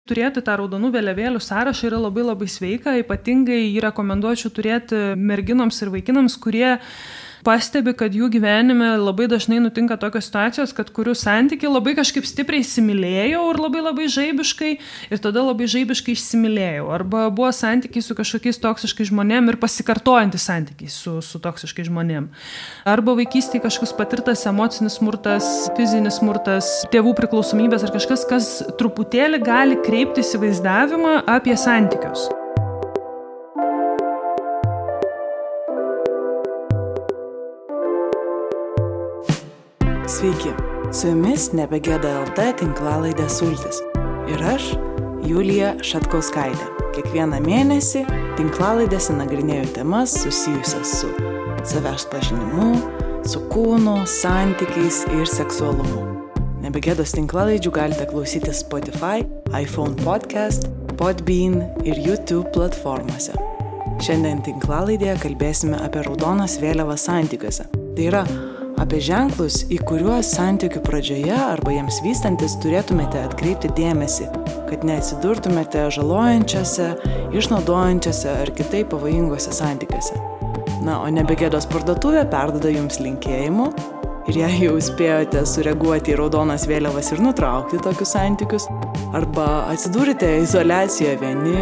Turėti tą raudonų vėliavėlių sąrašą yra labai labai sveika, ypatingai jį rekomenduočiau turėti merginoms ir vaikinams, kurie pastebi, kad jų gyvenime labai dažnai nutinka tokios situacijos, kad kurių santykiai labai kažkaip stipriai įsimylėjau ir labai labai žaibiškai ir tada labai žaibiškai išsimylėjau. Arba buvo santykiai su kažkokiais toksiškais žmonėm ir pasikartojantys santykiai su toksiškais žmonėm. Arba vaikystėje kažkoks patirtas emocinis smurtas, fizinis smurtas, tėvų priklausomybės ar kažkas, kas truputėlį gali kreipti įsivaizdavimą apie santykius. Sveiki, su jumis Nebegėda LT tinklalaidė Sultis. Ir aš, Julija Šatkauskaitė. Kiekvieną mėnesį tinklalaidėse nagrinėju temas susijusias su savęs pažinimu, su kūnu, santykiais ir seksualumu. Nebegėdos tinklalaidžių galite klausyti Spotify, iPhone Podcast, Podbean ir YouTube platformose. Šiandien tinklalaidėje kalbėsime apie raudonas vėliavas santykiuose. Tai yra apie ženklus, į kuriuos santykių pradžioje arba jiems vystantis turėtumėte atkreipti dėmesį, kad neatsidurtumėte žalojančiose, išnaudojančiose ar kitaip pavojingose santykiuose. Na, o Nebegėdos parduotuvė perduoda jums linkėjimų ir jei jau spėjote sureaguoti į raudonas vėliavas ir nutraukti tokius santykius, arba atsidūrite izoliacijoje vieni,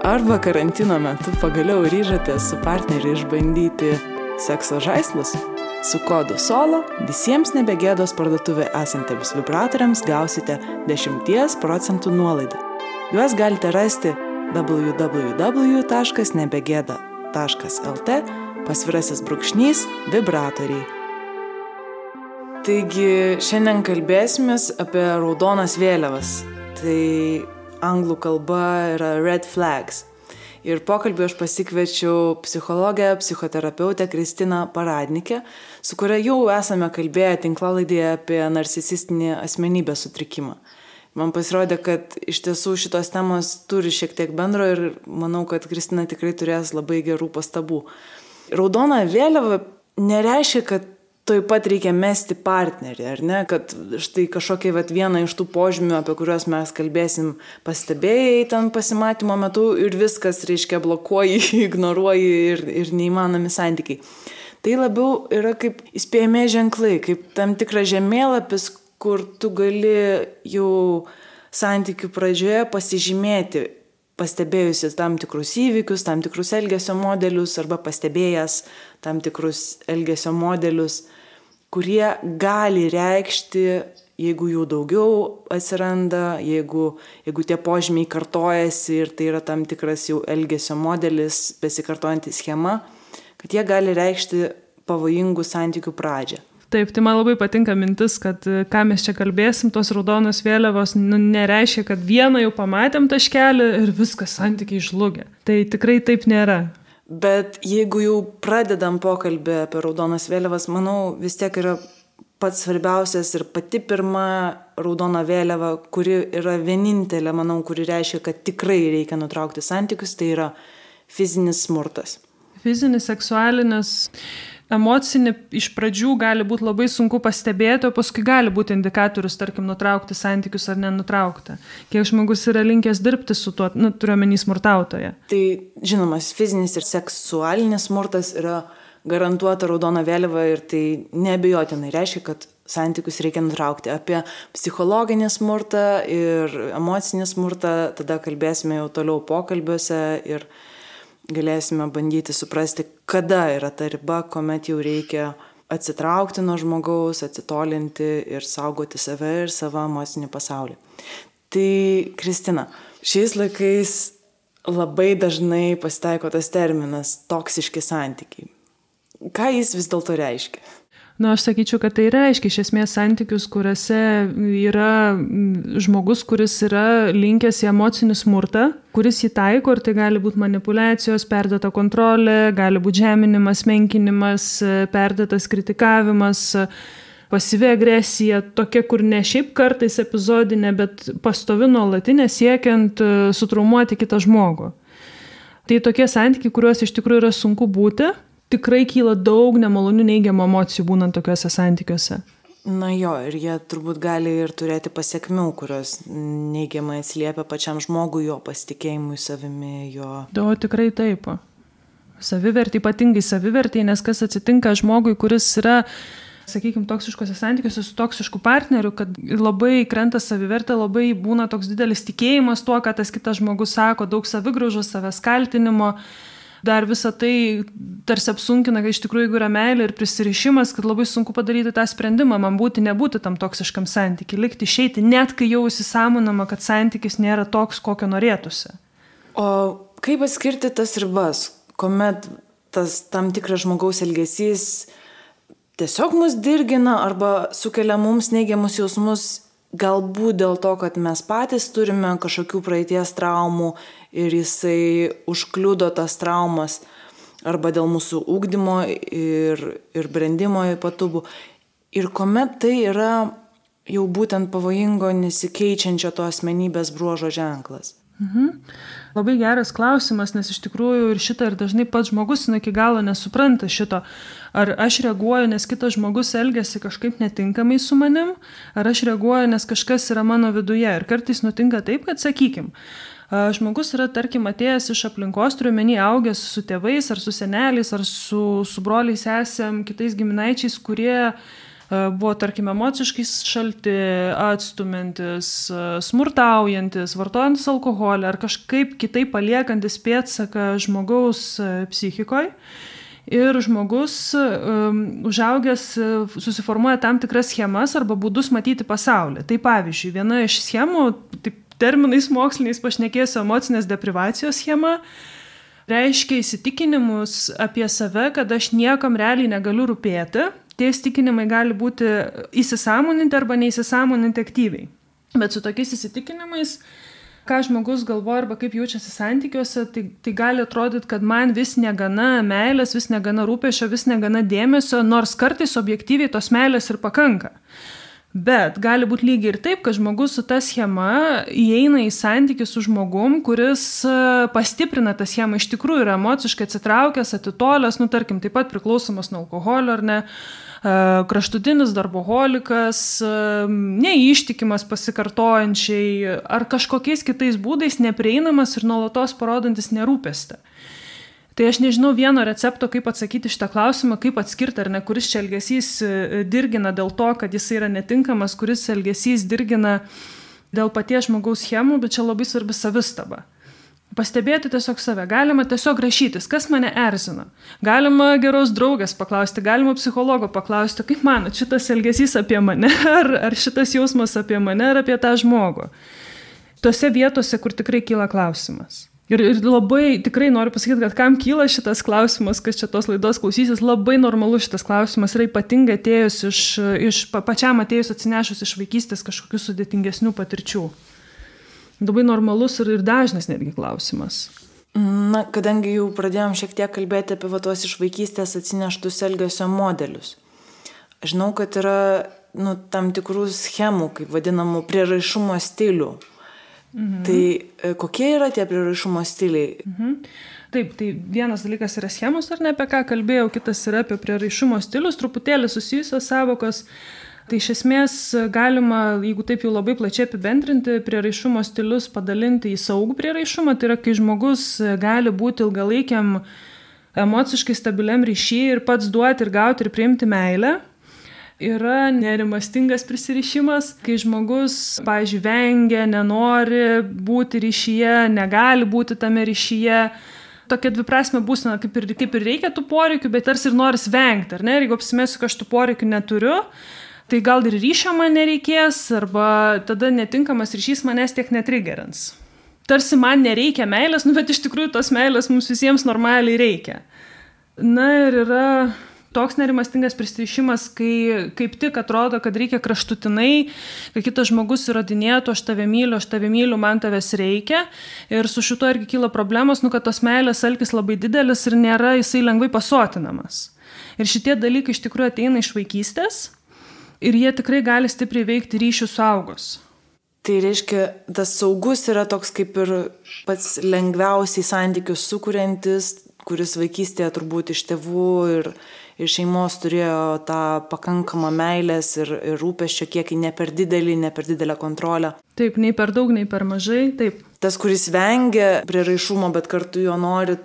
arba karantino metu pagaliau ryžotės su partneriu išbandyti sekso žaislus, su kodu SOLO visiems Nebegėdos parduotuvė esantiems vibratoriams gausite 10% nuolaidą. Juos galite rasti www.nebegėda.lt/vibratoriai. Taigi, šiandien kalbėsimės apie raudonas vėliavas. Tai anglų kalba yra red flags. Ir pokalbį aš pasikviečiau psichologę, psichoterapeutę Kristiną Paradnikę, su kuria jau esame kalbėję tinklalaidėje apie narcisistinį asmenybės sutrikimą. Man pasirodė, kad iš tiesų šitos temos turi šiek tiek bendro ir manau, kad Kristina tikrai turės labai gerų pastabų. Raudona vėliava nereiškia, kad tuoj pat reikia mesti partnerį, ar ne? Kad štai kažkokia viena iš tų požymių, apie kuriuos mes kalbėsim, pastebėjai ten pasimatymo metu ir viskas, reiškia, blokuoji, ignoruoji ir neįmanomi santykiai. Tai labiau yra kaip įspėjami ženklai, kaip tam tikras žemėlapis, kur tu gali jau santykių pradžioje pasižymėti, pastebėjusi tam tikrus įvykius, tam tikrus elgesio modelius arba pastebėjęs tam tikrus elgesio modelius, kurie gali reikšti, jeigu jų daugiau atsiranda, jeigu tie požymiai kartojasi ir tai yra tam tikras jau elgesio modelis, besikartojanti schema, kad jie gali reikšti pavojingų santykių pradžią. Taip, tai man labai patinka mintis, kad ką mes čia kalbėsim, tos raudonos vėliavos nereiškia, kad vieną jau pamatėm taškelį ir viskas santykiai žlugia. Tai tikrai taip nėra. Bet jeigu jau pradedam pokalbį apie raudonas vėliavas, manau vis tiek yra pats svarbiausias ir pati pirma raudona vėliava, kuri yra vienintelė, manau, kuri reiškia, kad tikrai reikia nutraukti santykius, tai yra fizinis smurtas. Fizinis, seksualinis, emocinį iš pradžių gali būti labai sunku pastebėti, o paskui gali būti indikatorius, tarkim, nutraukti santykius ar nenutraukti. Kiek žmogus yra linkęs dirbti su tuo, turiuomenį smurtautoje. Tai žinomas, fizinis ir seksualinis smurtas yra garantuota raudona vėliava ir tai neabejotinai reiškia, kad santykius reikia nutraukti. Apie psichologinį smurtą ir emocinį smurtą tada kalbėsime jau toliau pokalbiuose ir galėsime bandyti suprasti, kada yra ta riba, kuomet jau reikia atsitraukti nuo žmogaus, atsitolinti ir saugoti save ir savo emocinį pasaulį. Tai, Kristina, šiais laikais labai dažnai pasitaiko tas terminas toksiški santykiai. Ką jis vis dėlto reiškia? Aš sakyčiau, kad tai reiškia iš esmės santykius, kuriuose yra žmogus, kuris yra linkęs į emocinį smurtą, kuris jį taiko ir tai gali būti manipulacijos, perdėta kontrolė, gali būti žeminimas, menkinimas, perdėtas kritikavimas, pasyvi agresija, tokia, kur ne šiaip kartais epizodinė, bet pastovi nuolatinė siekiant sutraumuoti kitą žmogų. Tai tokie santykiai, kuriuos iš tikrųjų yra sunku būti. Tikrai kyla daug nemalonių neigiamų emocijų būnant tokiuose santykiuose. Na jo, ir jie turbūt gali ir turėti pasiekmių, kurios neigiamai atsiliepia pačiam žmogui, jo pasitikėjimui savimi, jo. O tikrai taip. Savivertį, ypatingai savivertį, nes kas atsitinka žmogui, kuris yra, sakykime, toksiškose santykiuose su toksišku partneriu, kad labai krenta savivertė, labai būna toks didelis tikėjimas tuo, ką tas kitas žmogus sako, daug savigraužos, savęs kaltinimo. Dar visą tai tarsi apsunkina, kad iš tikrųjų, jeigu yra meilė ir prisirišimas, kad labai sunku padaryti tą sprendimą, man būti, nebūti tam toksiškam santykiui, likti, išeiti, net kai jau įsisąmonama, kad santykis nėra toks, kokio norėtųsi. O kaip atskirti tas ribas, kuomet tas tam tikras žmogaus elgesys tiesiog mus dirgina arba sukelia mums neigiamus jausmus, galbūt dėl to, kad mes patys turime kažkokių praeities traumų ir jisai užkliudo tas traumas, arba dėl mūsų ugdymo ir brendimo ypatumų. Ir kuomet tai yra jau būtent pavojingo nesikeičiančio to asmenybės bruožo ženklas. Labai geras klausimas, nes iš tikrųjų ir šitą ir dažnai pats žmogus iki galo nesupranta šito. Ar aš reaguoju, nes kitas žmogus elgiasi kažkaip netinkamai su manim, ar aš reaguoju, nes kažkas yra mano viduje. Ir kartais nutinka taip, kad sakykim, žmogus yra, tarkim, atėjęs iš aplinkos, turiu omeny, augęs su tėvais, ar su seneliais, ar su broliais, sesėm, kitais giminaičiais, kurie buvo, tarkim, emociškai šalti, atstumiantis, smurtaujantis, vartojantis alkoholį ar kažkaip kitaip paliekantis pėdsaką žmogaus psichikoje. Ir žmogus užaugęs susiformuoja tam tikras schemas arba būdus matyti pasaulį. Tai pavyzdžiui, viena iš schemų, taip terminais moksliniais pašnekėsiu, emocinės deprivacijos schema, reiškia įsitikinimus apie save, kad aš niekam realiai negaliu rūpėti. Tie įsitikinimai gali būti įsisąmoninti arba neįsisąmoninti aktyviai. Bet su tokiais įsitikinimais, ką žmogus galvoja arba kaip jaučiasi santykiuose, tai gali atrodyti, kad man vis negana meilės, vis negana rūpesčio, vis negana dėmesio, nors kartais objektyviai tos meilės ir pakanka. Bet gali būti lygiai ir taip, kad žmogus su ta schema įeina į santykį su žmogum, kuris pastiprina tą schemą, iš tikrųjų yra emociškai atsitraukęs, atitolęs, tarkim, taip pat priklausomas nuo alkoholio ar ne, kraštutinis darboholikas, neištikimas pasikartojančiai ar kažkokiais kitais būdais neprieinamas ir nuolatos parodantis nerūpestį. Tai aš nežinau vieno recepto, kaip atsakyti šitą klausimą, kaip atskirti ar ne, kuris čia elgesys dirgina dėl to, kad jis yra netinkamas, kuris elgesys dirgina dėl paties žmogaus schemų, bet čia labai svarbi savistaba. Pastebėti tiesiog save, galima tiesiog rašytis, kas mane erzina. Galima geros draugės paklausti, galima psichologo paklausti, kaip manot, šitas elgesys apie mane, ar šitas jausmas apie mane, ar apie tą žmogų. Tose vietose, kur tikrai kyla klausimas. Ir labai tikrai noriu pasakyti, kad kam kyla šitas klausimas, kas čia tos laidos klausysis, labai normalu šitas klausimas yra ypatingai atėjus pačiam atėjus atsinešus iš vaikystės kažkokių sudėtingesnių patirčių. Labai normalus ir dažnas netgi klausimas. Na, kadangi jau pradėjom šiek tiek kalbėti apie tuos iš vaikystės atsineštus elgesio modelius. Žinau, kad yra tam tikrų schemų, kaip vadinamų prieraišumo stilių. Tai kokie yra tie prieraišumo stiliai? Taip, tai vienas dalykas yra schemos, ar ne, apie ką kalbėjau, kitas yra apie prieraišumo stilius, truputėlį susijusios savokos. Tai iš esmės galima, jeigu taip jau labai plačiai apibendrinti, prieraišumo stilius padalinti į saugų prieraišumą. Tai yra, kai žmogus gali būti ilgalaikiam emociškai stabiliam ryšyje ir pats duoti ir gauti ir priimti meilę. Yra nerimastingas prisirišimas, kai žmogus, pavyzdžiui, vengia, nenori būti ryšyje, negali būti tame ryšyje. Tokia dviprasmė būsena, kaip ir reikia tų poreikių, bet tarsi ir noris vengti, ar ne? Ir jeigu apsimesiu, kad aš tų poreikių neturiu, tai gal ir ryšio man nereikės, arba tada netinkamas ryšys manęs tiek netrigerins. Tarsi man nereikia meilės, bet iš tikrųjų tos meilės mums visiems normaliai reikia. Na ir yra toks nerimastingas prisirišimas, kai kaip tik atrodo, kad reikia kraštutinai, kai kitas žmogus įrodinėtų, aš tave myliu, man tavęs reikia. Ir su šito irgi kyla problemos, kad tos meilės alkis labai didelis ir nėra jisai lengvai pasotinamas. Ir šitie dalykai iš tikrųjų ateina iš vaikystės ir jie tikrai gali stipriai veikti ryšių suaugus. Tai reiškia, tas saugus yra toks kaip ir pats lengviausiai santykius sukuriantis, kuris vaikystėje turbūt iš tėvų ir šeimos turėjo tą pakankamą meilės ir rūpesčio kiekį, ne per didelę kontrolę. Taip, nei per daug, nei per mažai, taip. Tas, kuris vengia prieraišumo, bet kartu jo nori.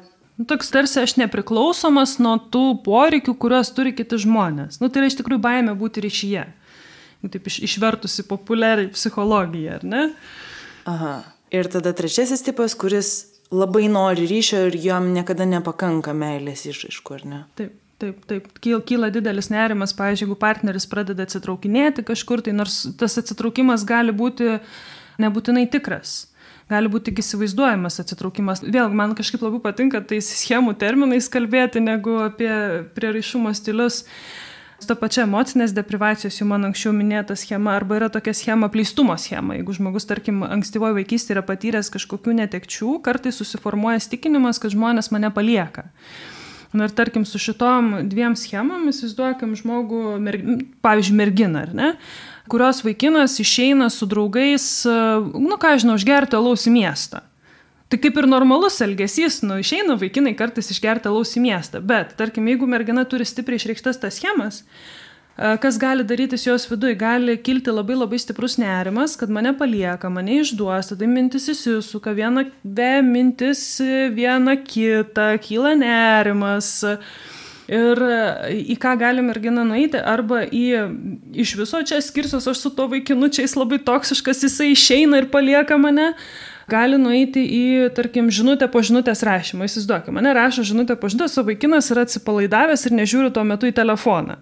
Toks tarsi aš nepriklausomas nuo tų poreikių, kuriuos turi kiti žmonės. Tai yra iš tikrųjų baimė būti ryšyje. Taip išvertusi populiariai psichologiją, ar ne? Aha. Ir tada trečiasis tipas, kuris labai nori ryšio ir jam niekada nepakanka meilės išraiškų, ar ne? Taip. Kyla didelis nerimas, pavyzdžiui, jeigu partneris pradeda atsitraukinėti kažkur, tai nors tas atsitraukimas gali būti nebūtinai tikras. Gali būti tik įsivaizduojamas atsitraukimas. Vėl, man kažkaip labai patinka tais schemų terminais kalbėti, negu apie prieraišumo stilius. Ta pačia emocinės deprivacijos, jau man anksčiau minėta schema, arba yra tokia schema apleistumo schema. Jeigu žmogus, tarkim, ankstyvoje vaikystėje yra patyręs kažkokių netekčių, kartais susiformuoja įsitikinimas, kad žmonės mane palieka. Ir tarkim, su šitom dviem schemom įsivaizduokim žmogų, pavyzdžiui, merginą, ar ne? Kurios vaikinas išeina su draugais, išgerti alaus į miestą. Tai kaip ir normalus elgesys, išeina vaikinai kartais išgerti alaus į miestą. Bet, tarkim, jeigu mergina turi stipriai išreikštas tas schemas, kas gali darytis jos viduje? Gali kilti labai labai stiprus nerimas, kad mane palieka, mane išduos, tada mintis įsisuka, viena kitą, kyla nerimas. Ir į ką gali mergina nueiti, arba iš viso čia skirsiuos aš su to vaikinu, čia jis labai toksiškas, jisai išeina ir palieka mane. Gali nueiti į, tarkim, žinutę po žinutės rašymą. Įsivaizduokime, mane rašo žinutę po žinutės, o vaikinas yra atsipalaidavęs ir nežiūri tuo metu į telefoną.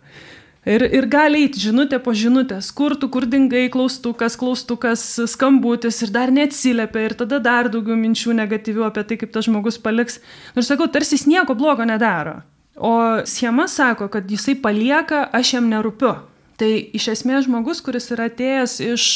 Ir gali eiti žinutė po žinutės, kur dingai, klaustukas, skambutis ir dar neatsiliepia ir tada dar daugiau minčių negatyvių apie tai, kaip tas žmogus paliks. Nors sakau, tarsi jis nieko blogo nedaro. O schema sako, kad jisai palieka, aš jam nerūpiu. Tai iš esmės žmogus, kuris yra atėjęs iš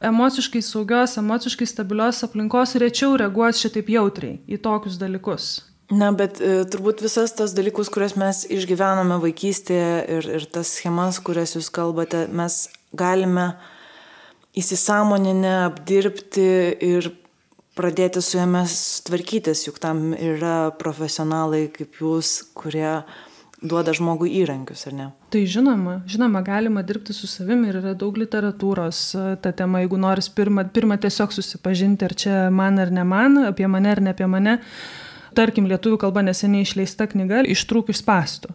emociškai saugios, emociškai stabilios aplinkos, rečiau reaguos šitaip jautriai į tokius dalykus. Na, bet turbūt visas tas dalykus, kurias mes išgyvename vaikystėje ir tas schemas, kurias jūs kalbate, mes galime įsisąmoninę apdirbti ir pradėti su jomis tvarkytis, juk tam yra profesionalai kaip jūs, kurie duoda žmogui įrankius, ar ne? Tai žinoma, galima dirbti su savimi ir yra daug literatūros ta tema, jeigu noris pirmą tiesiog susipažinti, ar čia man ar ne man, apie mane ar ne apie mane. Tarkim, lietuvių kalba neseniai išleista knyga Ištrūk iš spąstų.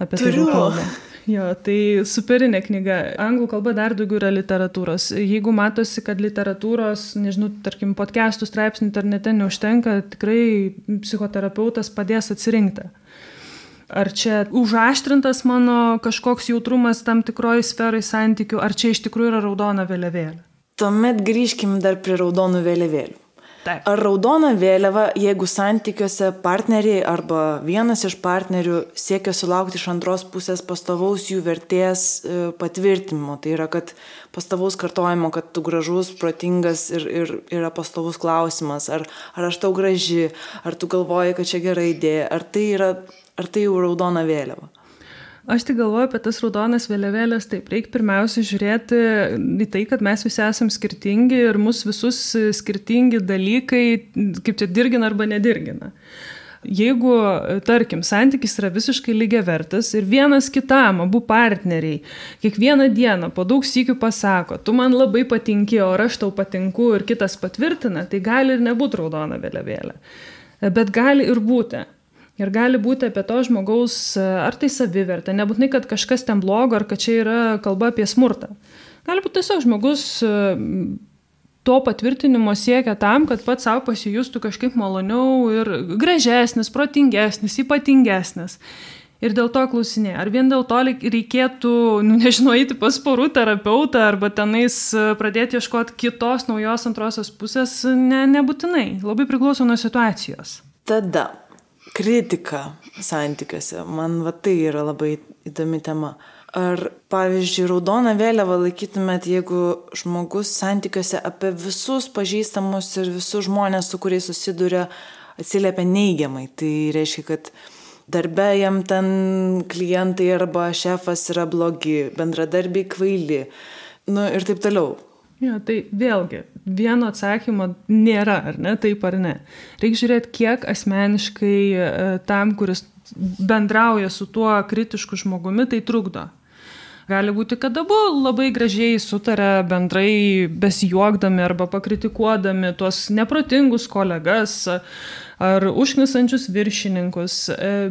Apie tai kalba. Jo, tai superinė knyga. Anglų kalba dar daugiau yra literatūros. Jeigu matosi, kad literatūros, tarkim, podcastų straipsnių internete neužtenka, tikrai psichoterapeutas padės atsirinkti. Ar čia užaštrintas mano kažkoks jautrumas tam tikroji sferai santykių, ar čia iš tikrųjų yra raudona vėliavėlė? Tuomet grįžkim dar prie raudonų vėliavėlių. Taip. Ar raudona vėliava, jeigu santykiuose partneriai arba vienas iš partnerių siekia sulaukti iš antros pusės pastovaus jų vertės patvirtinimo, tai yra, kad pastovaus kartojimo, kad tu gražus, protingas ir yra pastovus klausimas, ar aš tau graži, ar tu galvoji, kad čia gera idėja, ar tai jau raudona vėliava? Aš tik galvoju apie tas raudonas vėliavėlės, taip, reikia pirmiausia žiūrėti į tai, kad mes visi esam skirtingi ir mus visus skirtingi dalykai, kaip čia dirgina arba nedirgina. Jeigu, tarkim, santykis yra visiškai lygiavertis ir vienas kitam, abu partneriai, kiekvieną dieną po daug sykių pasako, tu man labai patinki, o aš tau patinku ir kitas patvirtina, tai gali ir nebūti raudona vėliavėlė. Bet gali ir būti. Ir gali būti apie to žmogaus, ar tai savivertė, nebūtinai, kad kažkas ten blogo, ar kad čia yra kalba apie smurtą. Gali būti tiesiog žmogus to patvirtinimo siekia tam, kad pats savo pasijustų kažkaip maloniau ir gražesnis, protingesnis, ypatingesnis. Ir dėl to klausinė, ar vien dėl to reikėtų, eiti pas porų terapeutą arba tenais pradėti ieškoti kitos naujos antrosios pusės, nebūtinai, labai priklauso nuo situacijos. Tada kritika santykiuose. Man tai yra labai įdomi tema. Ar, pavyzdžiui, raudoną vėliavą laikytumėt, jeigu žmogus santykiuose apie visus pažįstamus ir visus žmonės, su kuriais susiduria, atsiliepia neigiamai. Tai reiškia, kad darbe jam ten klientai arba šefas yra blogi, bendradarbiai kvaili, ir taip toliau. Jo, tai vėlgi, vieno atsakymo nėra, ar ne, taip ar ne. Reikia žiūrėti, kiek asmeniškai tam, kuris bendrauja su tuo kritišku žmogumi, tai trukdo. Gali būti, kad abu labai gražiai sutarė bendrai besijuokdami arba pakritikuodami tuos neprotingus kolegas ar užknisančius viršininkus.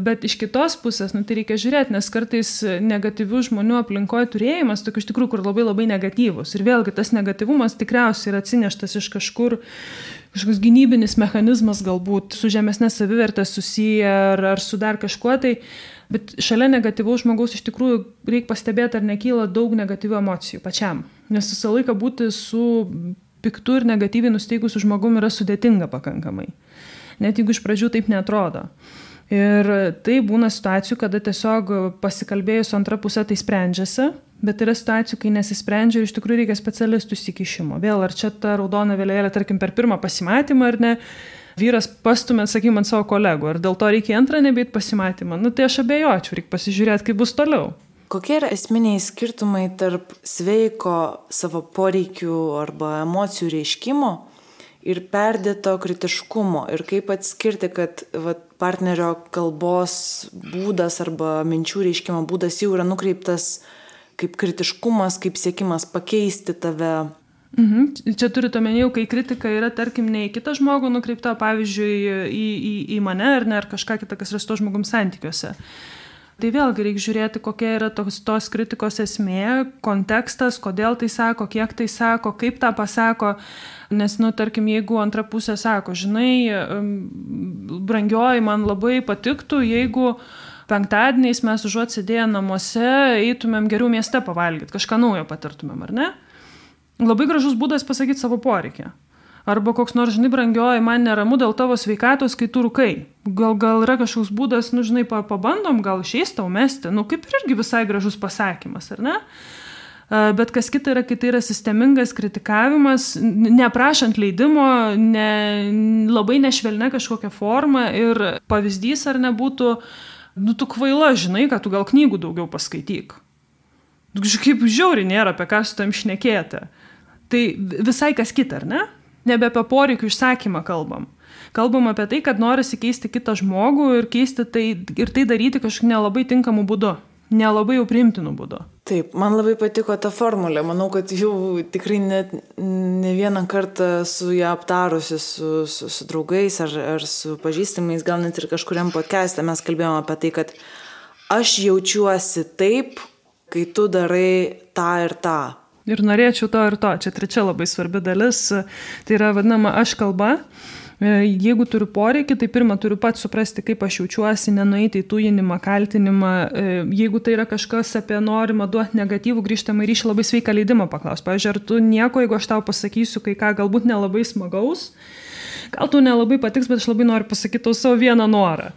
Bet iš kitos pusės, tai reikia žiūrėti, nes kartais negatyvių žmonių aplinkoje turėjimas, tokių iš tikrųjų, kur labai negatyvus. Ir vėlgi tas negatyvumas tikriausiai yra atsineštas iš kažkur, kažkoks gynybinis mechanizmas galbūt su žemesnė savivertė susiję ar su dar kažkuo tai. Bet šalia negatyvaus žmogaus iš tikrųjų reikia pastebėti, ar nekyla daug negatyvių emocijų pačiam. Nes visą laiką būti su piktu ir negatyviai nusteikusiu žmogumi yra sudėtinga pakankamai. Net jeigu iš pradžių taip neatrodo. Ir tai būna situacijų, kada tiesiog pasikalbėjus su antra pusė tai sprendžiasi, bet yra situacijų, kai nesisprendžia ir iš tikrųjų reikia specialistų įsikišimo. Vėl, ar čia ta raudona vėliavėlė, tarkim, per pirmą pasimatymą ar ne, vyras pastumė, sakykime, ant savo kolegų, ar dėl to reikia antrą nebeit pasimatymą. Tai aš abejočiau, reikia pasižiūrėti, kaip bus toliau. Kokie yra esminiai skirtumai tarp sveiko savo poreikių arba emocijų reiškimo ir perdėto kritiškumo? Ir kaip atskirti, kad partnerio kalbos būdas arba minčių reiškimo būdas jau yra nukreiptas kaip kritiškumas, kaip siekimas pakeisti tave? Čia turite omenyje, kai kritika yra, tarkim, ne į kitą žmogų nukreipta, pavyzdžiui, į mane ar ne, ar kažką kitą, kas yra su to žmogum santykiuose. Tai vėlgi reikia žiūrėti, kokia yra tos kritikos esmė, kontekstas, kodėl tai sako, kiek tai sako, kaip tą pasako. Nes, tarkim, jeigu antra pusė sako, žinai, brangioji, man labai patiktų, jeigu penktadieniais mes užuot sėdėję namuose, eitumėm geriau mieste pavalgyti, kažką naujo patirtumėm, ar ne? Labai gražus būdas pasakyti savo poreikį. Arba koks nors, žinai, brangioji, man neramu dėl tavo sveikatos, kai tu rūkai. Gal yra kažkoks būdas, žinai, pabandom, gal išeis tau mesti. Kaip ir irgi visai gražus pasakymas, ar ne? Bet kas kita yra, kai tai yra sistemingas kritikavimas, neprašant leidimo, labai nešvelnia kažkokia forma ir pavyzdys ar nebūtų, tu kvaila, žinai, kad tu gal knygų daugiau paskaityk. Kaip žiauriai nėra apie ką su tam šnekėti. Tai visai kas kita, ar ne? Nebe apie poreikių išsakymą kalbam. Kalbam apie tai, kad norisi keisti kitą žmogų ir keisti tai, ir tai daryti kažkaip nelabai tinkamų būdu, nelabai jau priimtinų būdu. Taip, man labai patiko ta formulė. Manau, kad jau tikrai ne vieną kartą su ją aptarusi su draugais ar su pažįstamais, gal net ir kažkuriam podcast'e mes kalbėjome apie tai, kad aš jaučiuosi taip, kai tu darai tą ir tą. Ir norėčiau to ir to. Čia trečia labai svarbi dalis. Tai yra vadinama aš kalba. Jeigu turiu poreikį, tai pirmą turiu pats suprasti, kaip aš jaučiuosi, nenueiti į tujinimą, kaltinimą. Jeigu tai yra kažkas apie norimą duoti negatyvų grįžtamą ryšį, labai sveiką leidimą paklaus. Pavyzdžiui, ar tu nieko, jeigu aš tau pasakysiu kai ką galbūt nelabai smagaus, gal tu nelabai patiks, bet aš labai noriu pasakyti tau savo vieną norą.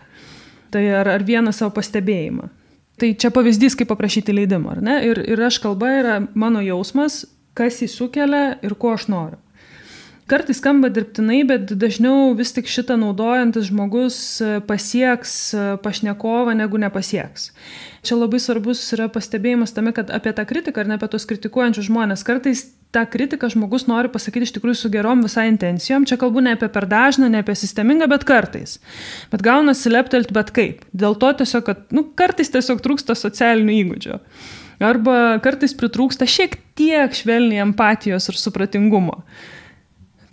Tai ar vieną savo pastebėjimą. Tai čia pavyzdys, kaip paprašyti leidimo, ar ne? Ir aš kalba yra mano jausmas, kas jį sukelia ir ko aš noriu. Kartais skamba dirbtinai, bet dažniau vis tik šitą naudojantis žmogus pasieks pašnekovą, negu nepasieks. Čia labai svarbus yra pastebėjimas tame, kad apie tą kritiką ar ne apie tos kritikuojančius žmonės. Kartais tą kritiką žmogus nori pasakyti iš tikrųjų su gerom visai intencijom. Čia kalbu ne apie per dažną, ne apie sistemingą, bet kartais. Bet gaunasi leptelt bet kaip. Dėl to tiesiog, kad kartais tiesiog trūksta socialinių įgūdžių. Arba kartais pritrūksta šiek tiek švelniai empatijos ir supratingumo.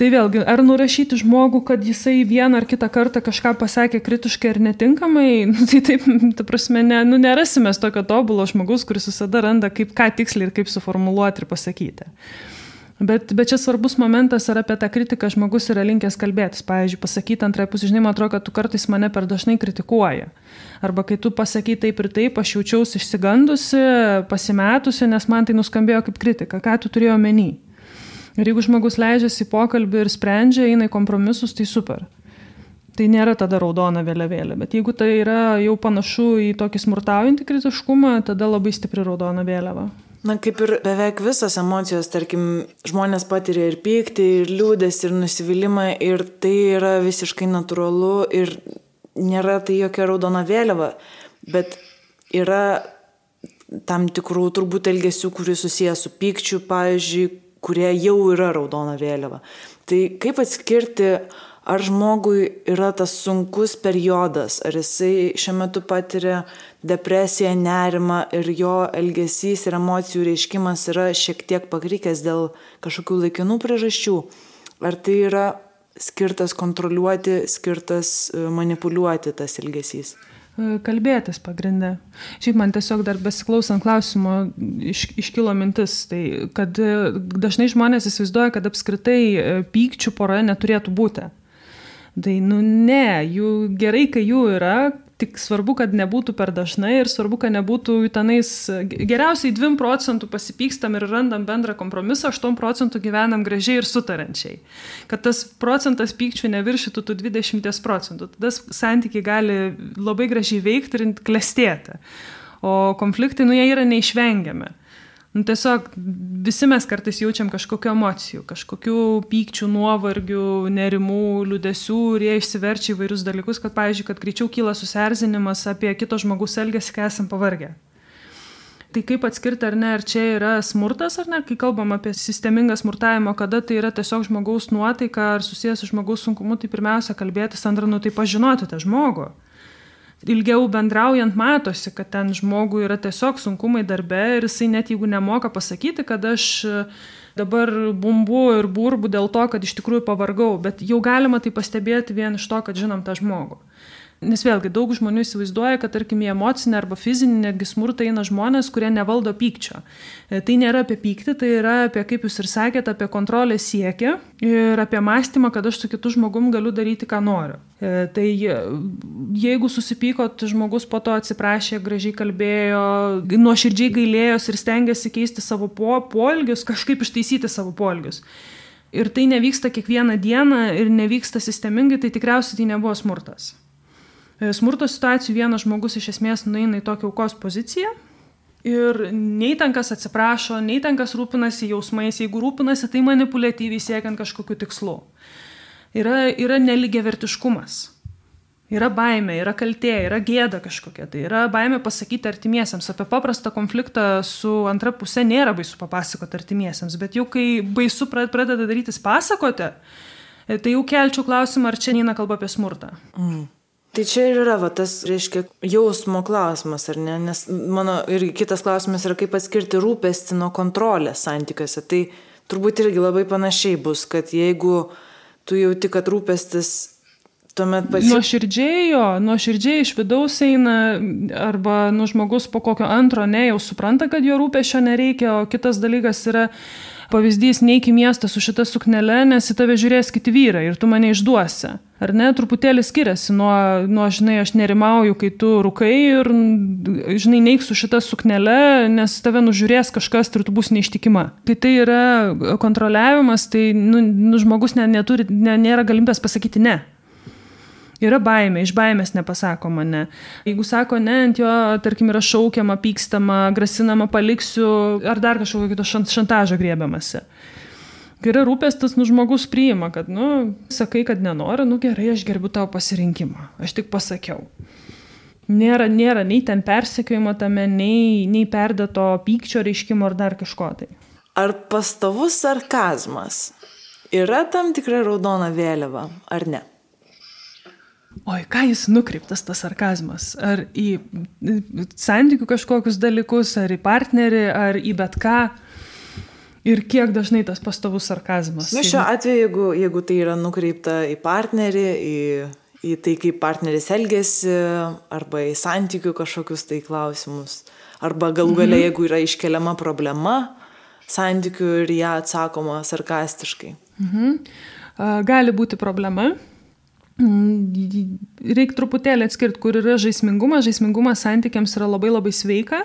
Tai vėlgi, ar nurašyti žmogų, kad jisai vieną ar kitą kartą kažką pasakė kritiškai ar netinkamai, tai taip, ta prasme, nerasime tokio tobulo žmogus, kuris visada randa, kaip ką tiksliai ir kaip suformuluoti ir pasakyti. Bet čia svarbus momentas, ar apie tą kritiką žmogus yra linkęs kalbėtis. Pavyzdžiui, pasakyti antrai pusė, žinai, man atrodo, kad tu kartais mane per dažnai kritikuoji. Arba kai tu pasakai taip ir taip, aš jaučiausi išsigandusi, pasimetusi, nes man tai nuskambėjo kaip kritika. Ką tu turėjai omeny? Ir jeigu žmogus leidžiasi į pokalbį ir sprendžia, eina į kompromisus, tai super. Tai nėra tada raudona vėliavėlė. Bet jeigu tai yra jau panašu į tokį smurtaujantį kritiškumą, tada labai stipri raudona vėliava. Kaip ir beveik visos emocijos, tarkim, žmonės patiria ir pyktį, ir liūdesį, ir nusivylimą, ir tai yra visiškai natūralu, ir nėra tai jokia raudona vėliava. Bet yra tam tikrų turbūt elgesių, kurie susijęs su pykčiu, pavyzdžiui, kurie jau yra raudona vėliava. Tai kaip atskirti, ar žmogui yra tas sunkus periodas, ar jisai šiuo metu patiria depresiją, nerimą ir jo elgesys ir emocijų reiškimas yra šiek tiek pakrikęs dėl kažkokių laikinų priežasčių, ar tai yra skirtas kontroliuoti, skirtas manipuliuoti tas elgesys? Kalbėtis pagrinde. Šiaip man tiesiog dar besiklausant klausimo iškilo mintis, tai kad dažnai žmonės įsivaizduoja, kad apskritai pykčių poroje neturėtų būti. Tai ne, jų gerai, kai jų yra, tik svarbu, kad nebūtų per dažnai ir svarbu, kad nebūtų tenais, geriausiai 2% pasipykstam ir randam bendrą kompromisą, 8% gyvenam gražiai ir sutarančiai. Kad tas procentas pykčių neviršytų tų 20%. Tada santykiai gali labai gražiai veikti ir klestėti. O konfliktai, jie yra neišvengiami. Tiesiog visi mes kartais jaučiam kažkokių emocijų, kažkokių pykčių, nuovargių, nerimų, liūdesių ir jie išsiverčia įvairius dalykus, kad, pavyzdžiui, kad greičiau kyla susierzinimas apie kito žmogaus elgesį, kai esam pavargę. Tai kaip atskirti, ar ne, ar čia yra smurtas, ar ne, kai kalbam apie sistemingą smurtavimą, kada tai yra tiesiog žmogaus nuotaika ar susijęs su žmogaus sunkumu, tai pirmiausia kalbėtis, antra, tai pažinoti tą žmogų. Ilgiau bendraujant matosi, kad ten žmogui yra tiesiog sunkumai darbe ir jisai net jeigu nemoka pasakyti, kad aš dabar bumbu ir burbu dėl to, kad iš tikrųjų pavargau, bet jau galima tai pastebėti vien iš to, kad žinom tą žmogų. Nes vėlgi daug žmonių įsivaizduoja, kad tarkim į emocinę arba fizinį netgi smurtą eina žmonės, kurie nevaldo pykčio. Tai nėra apie pyktį, tai yra apie, kaip jūs ir sakėte, apie kontrolės siekį ir apie mąstymą, kad aš su kitu žmogum galiu daryti, ką noriu. Tai jeigu susipykot, žmogus po to atsiprašė, gražiai kalbėjo, nuoširdžiai gailėjos ir stengiasi keisti savo poelgius, kažkaip ištaisyti savo poelgius. Ir tai nevyksta kiekvieną dieną ir nevyksta sistemingai, tai tikriausiai tai nebuvo smurtas. Smurto situacijų vienas žmogus iš esmės nueina į tokią aukos poziciją ir nei ten kas atsiprašo, nei ten kas rūpinasi jausmais, jeigu rūpinasi, tai manipuliatyviai siekiant kažkokių tikslų. Yra nelygiavertiškumas, yra baimė, yra kaltė, yra gėda kažkokia, tai yra baimė pasakyti artimiesiems. Apie paprastą konfliktą su antra pusė nėra baisu papasakoti artimiesiems, bet jau kai baisu pradeda darytis pasakoti, tai jau kelčiau klausimą, ar čia neina kalba apie smurtą. Tai čia ir yra tas, reiškia, jausmo klausimas, ar ne? Nes mano irgi kitas klausimas yra, kaip atskirti rūpestį nuo kontrolės santykiuose. Tai turbūt irgi labai panašiai bus, kad jeigu tu jauti, kad rūpestis tuomet nuoširdžiai iš vidaus eina, arba žmogus po kokio antro jau supranta, kad jo rūpesčio nereikia, o kitas dalykas yra pavyzdys, neik į miestą su šita suknele, nes į tave žiūrės kiti vyrai ir tu mane išduosi. Ar ne, truputėlį skiriasi nuo žinai, aš nerimauju, kai tu rūkai ir, žinai, neik su šita suknele, nes tave nužiūrės kažkas ir tu bus neištikima. Kai tai yra kontroliavimas, tai žmogus nėra galimybės pasakyti ne. Yra baimė, iš baimės nepasakoma ne. Jeigu sako ne, ant jo, tarkim, yra šaukiama, pykstama, grasinama, paliksiu, ar dar kažkokio kito šantažo griebiamasi. Kai yra rūpestis, žmogus priima, kad, sakai, kad nenori, gerai, aš gerbiu tavo pasirinkimą, aš tik pasakiau. Nėra nei ten persekiojimo tame, nei perdėto pykčio reiškimo ar dar kažko tai. Ar pastovus sarkazmas yra tam tikra raudona vėliava, ar ne? Oi, ką jis nukreiptas tas sarkazmas? Ar į santykių kažkokius dalykus, ar į partnerį, ar į bet ką? Ir kiek dažnai tas pastovus sarkazmas? Šiuo atveju, jeigu tai yra nukreipta į partnerį, į tai, kaip partneris elgesi, arba į santykių kažkokius tai klausimus, arba galų gale, jeigu yra iškeliama problema santykių ir ją atsakoma sarkastiškai. Gali būti problema. Reikia truputėlį atskirti, kur yra žaismingumas. Žaismingumas santykiams yra labai labai sveika.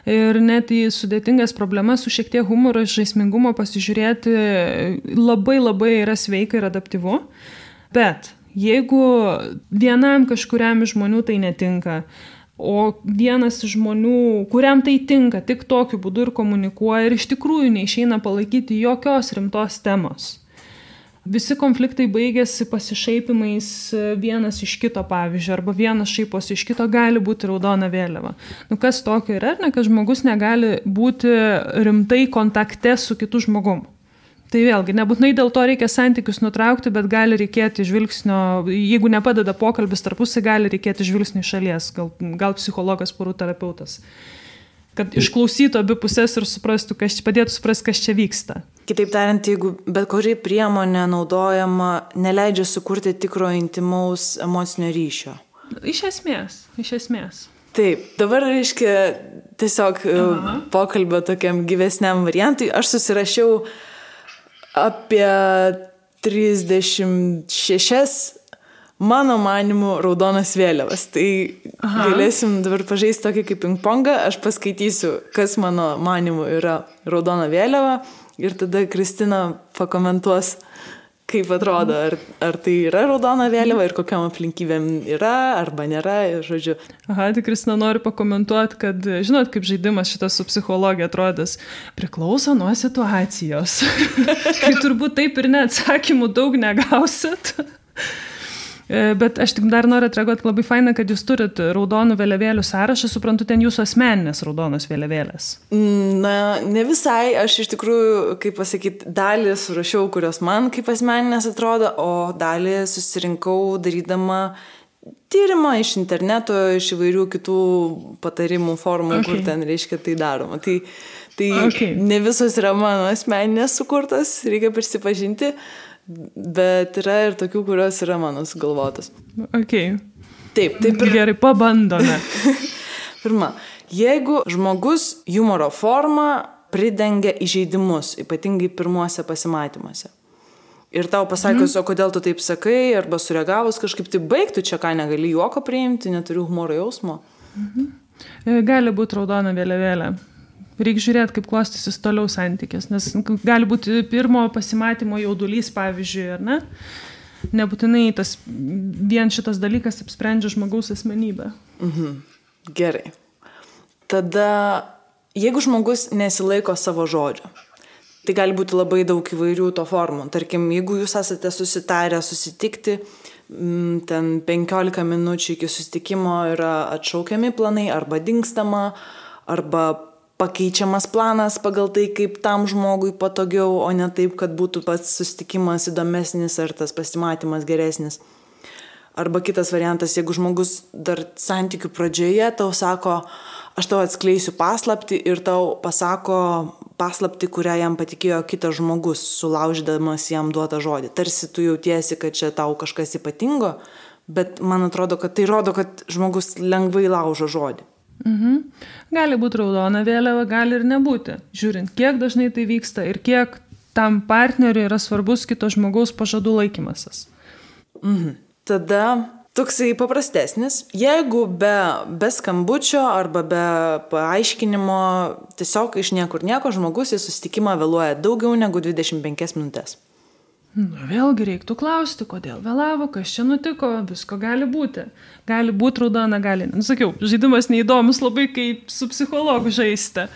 Ir net į sudėtingas problemas su šiek tiek humoro žaismingumo pasižiūrėti labai labai yra sveika ir adaptyvu. Bet jeigu vienam kažkuriam iš žmonių tai netinka, o vienas iš žmonių, kuriam tai tinka, tik tokiu būdu ir komunikuoja ir iš tikrųjų neišeina palaikyti jokios rimtos temos, Visi konfliktai baigėsi pasišaipimais vienas iš kito, pavyzdžiui, arba vienas šaiposi iš kito, gali būti raudona vėliava. Kas tokio yra, kad žmogus negali būti rimtai kontakte su kitu žmogum. Tai vėlgi, nebūtinai dėl to reikia santykius nutraukti, bet gali reikėti žvilgsnio, jeigu nepadeda pokalbis tarpusai, gali reikėti žvilgsnio iš šalies, gal psichologas, porų terapeutas. Kad išklausytų abi pusės ir suprastų, padėtų suprasti, kas čia vyksta. Kitaip tariant, jeigu bet kuri priemonė naudojama neleidžia sukurti tikro intimaus emocinio ryšio. Iš esmės. Taip, dabar reiškia tiesiog pokalbio tokiam gyvesniam variantui. Aš susirašiau apie 36 mano manimu raudonas vėliavas. Tai galėsim dabar pažaisti tokį kaip ping-pongą. Aš paskaitysiu, kas mano manimu yra raudona vėliava ir tada Kristina pakomentuos, kaip atrodo, ar tai yra raudona vėliava ir kokiam aplinkybėm yra arba nėra, žodžiu. Tai Kristina nori pakomentuoti, kad, žinot, kaip žaidimas šitas su psichologija atrodys, priklauso nuo situacijos. Kai turbūt taip ir neatsakymų daug negausit. Bet aš tik dar noriu atreaguoti, labai faina, kad jūs turit raudonų vėliavėlių sąrašą, suprantu, ten jūsų asmeninės raudonos vėliavėlės. Na, ne visai, aš iš tikrųjų, kaip pasakyti, dalį surašiau, kurios man kaip asmeninės atrodo, o dalį susirinkau darydama tyrimą iš interneto, iš įvairių kitų patarimų formų, kur ten reiškia tai daroma. Tai ne visos yra mano asmeninės sukurtos, reikia prisipažinti. Bet yra ir tokių, kurios yra mano sugalvotos. Taip. Gerai, pabandome. Pirma, jeigu žmogus humoro formą pridengia įžeidimus, ypatingai pirmuose pasimatymuose. Ir tau pasakius, o kodėl tu taip sakai, arba sureagavus kažkaip, tai baigtų čia ką, negali juoko priimti, neturiu humoro jausmo. Gali būti raudona vėliavėlė. Reikia žiūrėti, kaip klostysis toliau santykis, nes gali būti pirmo pasimatymo jaudulys, pavyzdžiui, ar ne? Nebūtinai vien šitas dalykas apsprendžia žmogaus asmenybę. Gerai. Tada, jeigu žmogus nesilaiko savo žodžio, tai gali būti labai daug įvairių to formų. Tarkim, jeigu jūs esate susitarę susitikti, ten 15 minučių iki susitikimo yra atšaukiami planai, arba dingstama, arba pakeičiamas planas pagal tai, kaip tam žmogui patogiau, o ne taip, kad būtų pats susitikimas įdomesnis ar tas pasimatymas geresnis. Arba kitas variantas, jeigu žmogus dar santykių pradžioje tau sako, aš tau atskleisiu paslaptį ir tau pasako paslaptį, kurią jam patikėjo kitas žmogus, sulaužydamas jam duotą žodį. Tarsi tu jautiesi, kad čia tau kažkas ypatingo, bet man atrodo, kad tai rodo, kad žmogus lengvai laužo žodį. Gali būti raudona vėliava, gali ir nebūti. Žiūrint, kiek dažnai tai vyksta ir kiek tam partneriui yra svarbus kito žmogaus pažadų laikymasis. Tada toksai paprastesnis. Jeigu be skambučio arba be paaiškinimo, tiesiog iš niekur nieko žmogus į susitikimą vėluoja daugiau negu 25 minutės. Vėlgi reiktų klausti, kodėl vėlavo, kas čia nutiko, visko gali būti. Gali būti raudona, gali. Sakiau, žaidimas neįdomus labai, kaip su psichologu žaisti.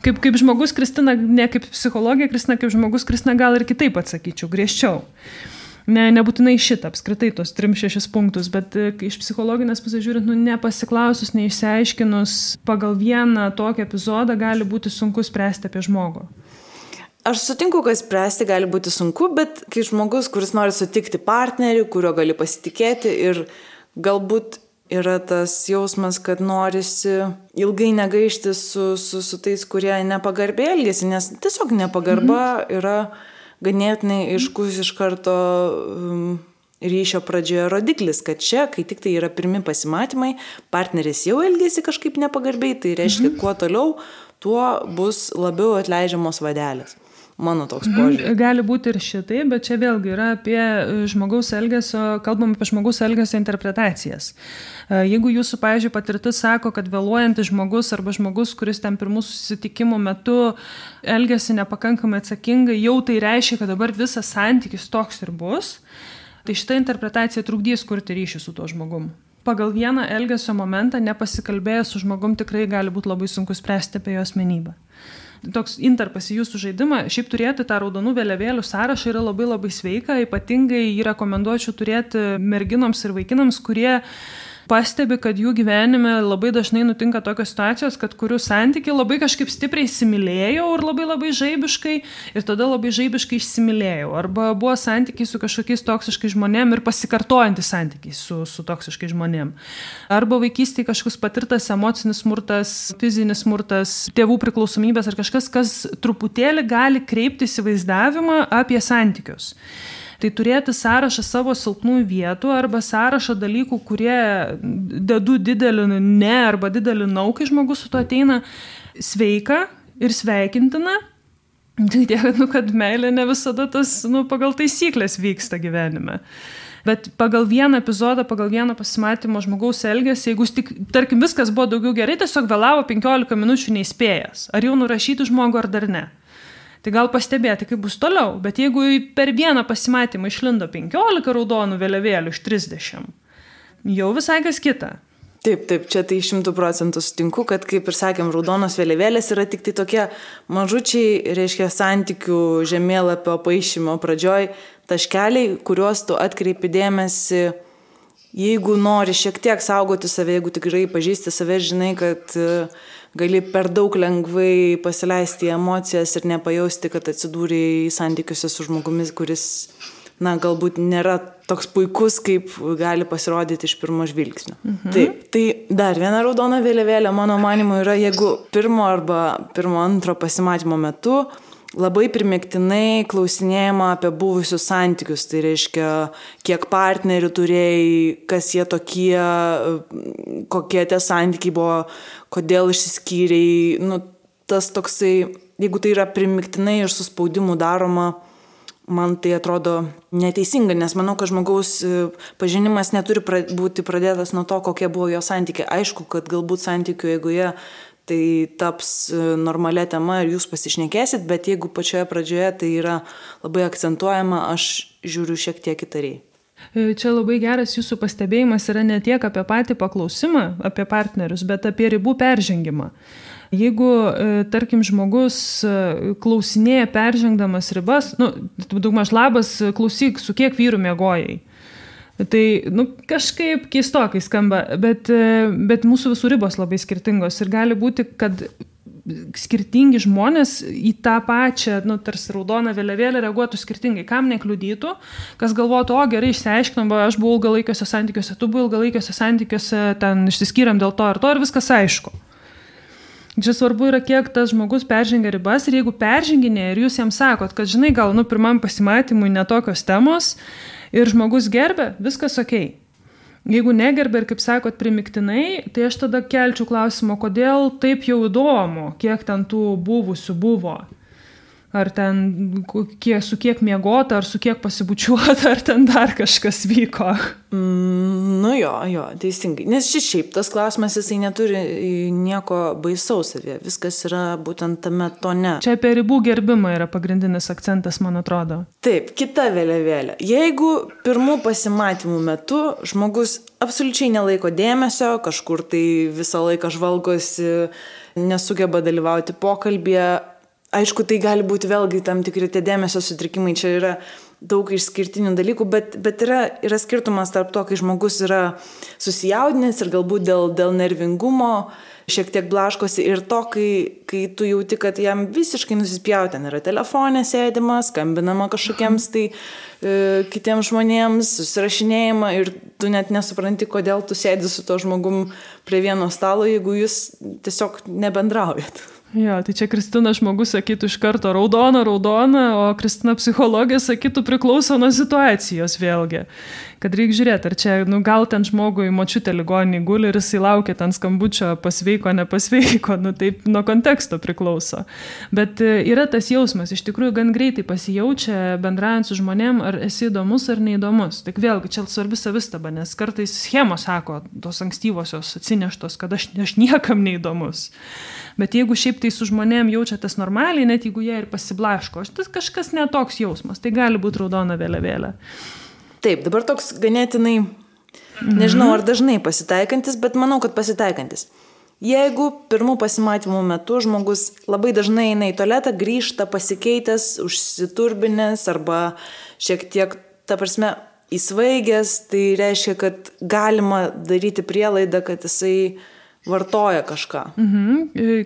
Kaip žmogus Kristina, ne kaip psichologija Kristina, kaip žmogus Kristina gal ir kitaip atsakyčiau, griežčiau. Nebūtinai šitą, apskritai tos 3-6 punktus, bet iš psichologinės pusės žiūrint, nepasiklausus, neišsiaiškinus, pagal vieną tokį epizodą gali būti sunku spręsti apie žmogų. Aš sutinku, kad spręsti gali būti sunku, bet kai žmogus, kuris nori sutikti partnerį, kurio gali pasitikėti ir galbūt yra tas jausmas, kad norisi ilgai negaišti su tais, kurie nepagarbiai elgiasi, nes tiesiog nepagarba yra ganėtinai aiškus iš karto ryšio pradžioje rodiklis, kad čia, kai tik tai yra pirmi pasimatymai, partneris jau elgiasi kažkaip nepagarbiai, tai reiškia, kuo toliau, tuo bus labiau atleidžiamos vadelės. Mano toks požiūris. Gali būti ir šitai, bet čia vėlgi yra apie žmogaus elgesio, kalbam apie žmogaus elgesio interpretacijas. Jeigu jūsų, pavyzdžiui, patirtis sako, kad vėluojantis žmogus arba žmogus, kuris ten pirmų susitikimų metu elgesi nepakankamai atsakingai, jau tai reiškia, kad dabar visas santykis toks ir bus, tai šita interpretacija trukdys kurti ryšį su tuo žmogum. Pagal vieną elgesio momentą nepasikalbėjęs su žmogum tikrai gali būti labai sunku spręsti apie jo asmenybę. toks interpas į jūsų žaidimą, šiaip turėti tą raudonų vėliavėlių sąrašą yra labai labai sveika, ypatingai jį rekomenduočiau turėti merginoms ir vaikinams, kurie pastebi, kad jų gyvenime labai dažnai nutinka tokios situacijos, kad kurių santykiai labai kažkaip stipriai įsimylėjau ir labai labai žaibiškai ir tada labai žaibiškai išsimylėjau. Arba buvo santykiai su kažkokiais toksiškais žmonėm ir pasikartojantys santykiai su toksiškais žmonėm. Arba vaikystėje kažkoks patirtas emocinis smurtas, fizinis smurtas, tėvų priklausomybės ar kažkas, kas truputėlį gali kreipti įsivaizdavimą apie santykius. Tai turėti sąrašą savo silpnųjų vietų arba sąrašą dalykų, kurie dedu didelį ne arba didelį nau, kai žmogus su to ateina, sveika ir sveikintina. Tai tiek, kad meilė ne visada tas pagal taisyklės vyksta gyvenime. Bet pagal vieną epizodą, pagal vieną pasimatymą žmogaus elgesį, jeigu tik, tarkim, viskas buvo daugiau gerai, tiesiog vėlavo 15 minučių neįspėjęs. Ar jau nurašyti žmogų ar dar ne. Tai gal pastebėti, kaip bus toliau, bet jeigu per vieną pasimatymą išlindo 15 raudonų vėliavėlių iš 30, jau visai kas kita. Taip, čia tai 100% sutinku, kad, kaip ir sakėm, raudonos vėliavėlės yra tik tai tokie mažučiai, reiškia, santykių žemėlapio paišymo pradžioj taškeliai, kuriuos tu atkreipi dėmesį, jeigu nori šiek tiek saugoti save, jeigu tikrai pažįsti save, žinai, kad gali per daug lengvai pasileisti emocijas ir nepajausti, kad atsidūrė santykiuose su žmogumis, kuris, galbūt nėra toks puikus, kaip gali pasirodyti iš pirmo žvilgsnio. Taip, tai dar viena raudona vėliavėlė, mano manymu, yra, jeigu pirmo antro pasimatymo metu labai primygtinai klausinėjama apie buvusius santykius, tai reiškia, kiek partnerių turėjai, kas jie tokie, kokie tie santykiai buvo, kodėl išsiskyrei, tas toksai, jeigu tai yra primygtinai ir su spaudimu daroma, man tai atrodo neteisinga, nes manau, kad žmogaus pažinimas neturi būti pradėtas nuo to, kokie buvo jo santykiai. Aišku, kad galbūt santykių eigoje tai taps normalia tema ir jūs pasišnekėsit, bet jeigu pačioje pradžioje tai yra labai akcentuojama, aš žiūriu šiek tiek įtariai. Čia labai geras jūsų pastebėjimas yra ne tiek apie patį paklausimą, apie partnerius, bet apie ribų peržengimą. Jeigu, tarkim, žmogus klausinėja peržengdamas ribas, daugmaž labas, klausyk, su kiek vyrų miegojai. Tai, kažkaip keistokai skamba, bet mūsų visų ribos labai skirtingos ir gali būti, kad skirtingi žmonės į tą pačią, tarsi raudoną vėliavėlę reaguotų skirtingai, kam nekliudytų, kas galvotų, gerai, išsiaiškinom, aš buvau ilgalaikiuose santykiuose, tu buvai ilgalaikiuose santykiuose, ten išsiskyrėm dėl to ir viskas aišku. Čia svarbu yra, kiek tas žmogus peržengia ribas ir jeigu perženginė ir jūs jam sakot, kad žinai, gal pirmam pasimatymui netokios temos ir žmogus gerbė, viskas okei. Jeigu negerbė ir, kaip sakot, primygtinai, tai aš tada kelčiau klausimą, kodėl taip jau įdomu, kiek ten tų buvusių buvo. Ar ten su kiek miegota, ar su kiek pasibučiuota, ar ten dar kažkas vyko. Jo, teisingai. Nes šiaip tas klausimas, jisai neturi nieko baisaus savie. Viskas yra būtent tame tone. Čia apie ribų gerbimą yra pagrindinis akcentas, man atrodo. Taip, kita vėliavėlė. Jeigu pirmų pasimatymų metu žmogus absoliučiai nelaiko dėmesio, kažkur tai visą laiką žvalgosi, nesugeba dalyvauti pokalbėje, aišku, tai gali būti vėlgi tam tikri tie dėmesio sutrikimai, čia yra daug išskirtinių dalykų, bet yra skirtumas tarp to, kai žmogus yra susijaudinęs ir galbūt dėl nervingumo šiek tiek blaškosi ir to, kai tu jauti, kad jam visiškai nusispjauti, ten yra telefonė sėdima, skambinama kažkokiems tai kitiems žmonėms, susirašinėjama ir tu net nesupranti, kodėl tu sėdi su to žmogum prie vieno stalo, jeigu jūs tiesiog nebendraujat. Jo, tai čia Kristina žmogus sakytų iš karto raudona, o Kristina psichologija sakytų priklauso nuo situacijos vėlgi. Kad reikia žiūrėti, ar čia, gal ten žmogui močiutė ligoninėj guli ir jisai laukia ten skambučio pasveiko, nepasveiko, taip nuo konteksto priklauso. Bet yra tas jausmas, iš tikrųjų gan greitai pasijaučia bendraujant su žmonėm, ar esi įdomus ar neįdomus. Tik vėlgi, čia svarbi savistaba, nes kartais schemos sako, tos ankstyvosios atsineštos, kad aš niekam neįdomus. Bet jeigu šiaip tai su žmonėm jaučiatės normaliai, net jeigu jie ir pasiblaško, tas kažkas netoks jausmas, tai gali būti raudona vėliavėlė. Taip, dabar toks ganėtinai, nežinau ar dažnai pasitaikantis, bet manau, kad pasitaikantis. Jeigu pirmų pasimatymų metu žmogus labai dažnai eina į tualetą, grįžta pasikeitęs, užsiturbinęs arba šiek tiek, ta prasme, įsvaigęs, tai reiškia, kad galima daryti prielaidą, kad jisai vartoja kažką.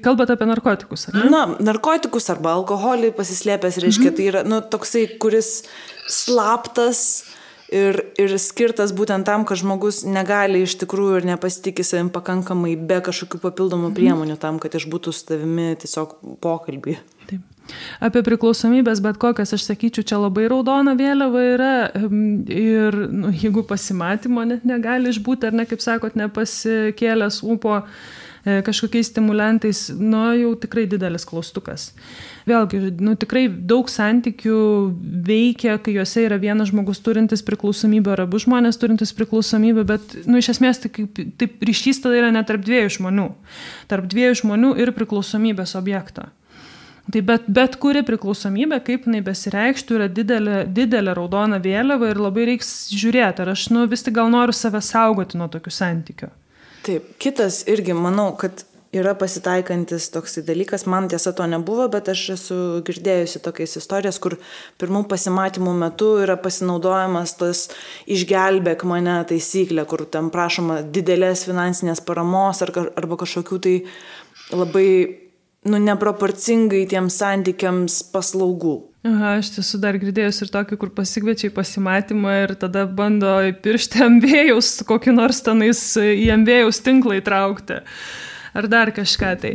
Kalbate apie narkotikus, ar ne? Na, narkotikus arba alkoholį pasislėpęs, reiškia, tai yra toksai, kuris slaptas ir skirtas būtent tam, kad žmogus negali iš tikrųjų ir nepasitikė savim pakankamai be kažkokių papildomų priemonių tam, kad išbūtų su tavimi tiesiog pokalbį. Taip. Apie priklausomybės, bet kokias, aš sakyčiau, čia labai raudona vėliava yra ir jeigu pasimatymo net negali išbūti, ar ne, kaip sakot, nepasikėlęs ūpo kažkokiais stimulantais, jau tikrai didelis klaustukas. Vėlgi, tikrai daug santykių veikia, kai juose yra vienas žmogus turintis priklausomybę ar abu žmonės turintis priklausomybę, bet iš esmės taip ryšys tada yra ne tarp dviejų žmonių. Tarp dviejų žmonių ir priklausomybės objekto. Tai bet kuri priklausomybė, kaip jinai besireikštų, yra didelė raudona vėliava ir labai reiks žiūrėti, ar aš vis tik gal noriu save saugoti nuo tokių santykių. Taip, kitas irgi, manau, kad yra pasitaikantis toksai dalykas, man tiesa to nebuvo, bet aš esu girdėjusi tokias istorijas, kur pirmų pasimatymų metu yra pasinaudojamas tas išgelbėk mane taisyklė, kur ten prašoma didelės finansinės paramos arba kažkokių tai labai neproporcingai tiems santykiams paslaugų. Aš tiesų dar girdėjus ir tokį, kur pasikviečia į pasimatymą ir tada bando įpiršti ambėjaus, kokį nors tenais į ambėjaus tinklą įtraukti. Ar dar kažką tai.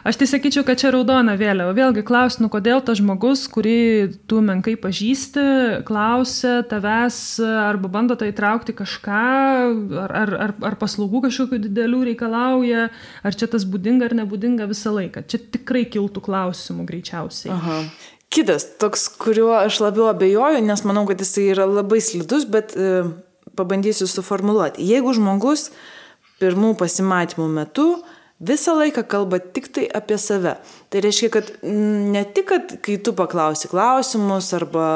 Aš tai sakyčiau, kad čia raudona vėliava. Vėlgi klausiu, kodėl tas žmogus, kurį tu menkai pažįsti, klausia tavęs arba bando tai įtraukti kažką, ar paslaugų kažkokių didelių reikalauja, ar čia tas būdinga ar nebūdinga visą laiką. Čia tikrai kiltų klausimų greičiausiai. Aha. Kitas, toks, kuriuo aš labiau abejoju, nes manau, kad jisai yra labai slidus, bet pabandysiu suformuluoti. Jeigu žmogus pirmų pasimatymų metu visą laiką kalba tik tai apie save. Tai reiškia, kad ne tik, kad kai tu paklausi klausimus arba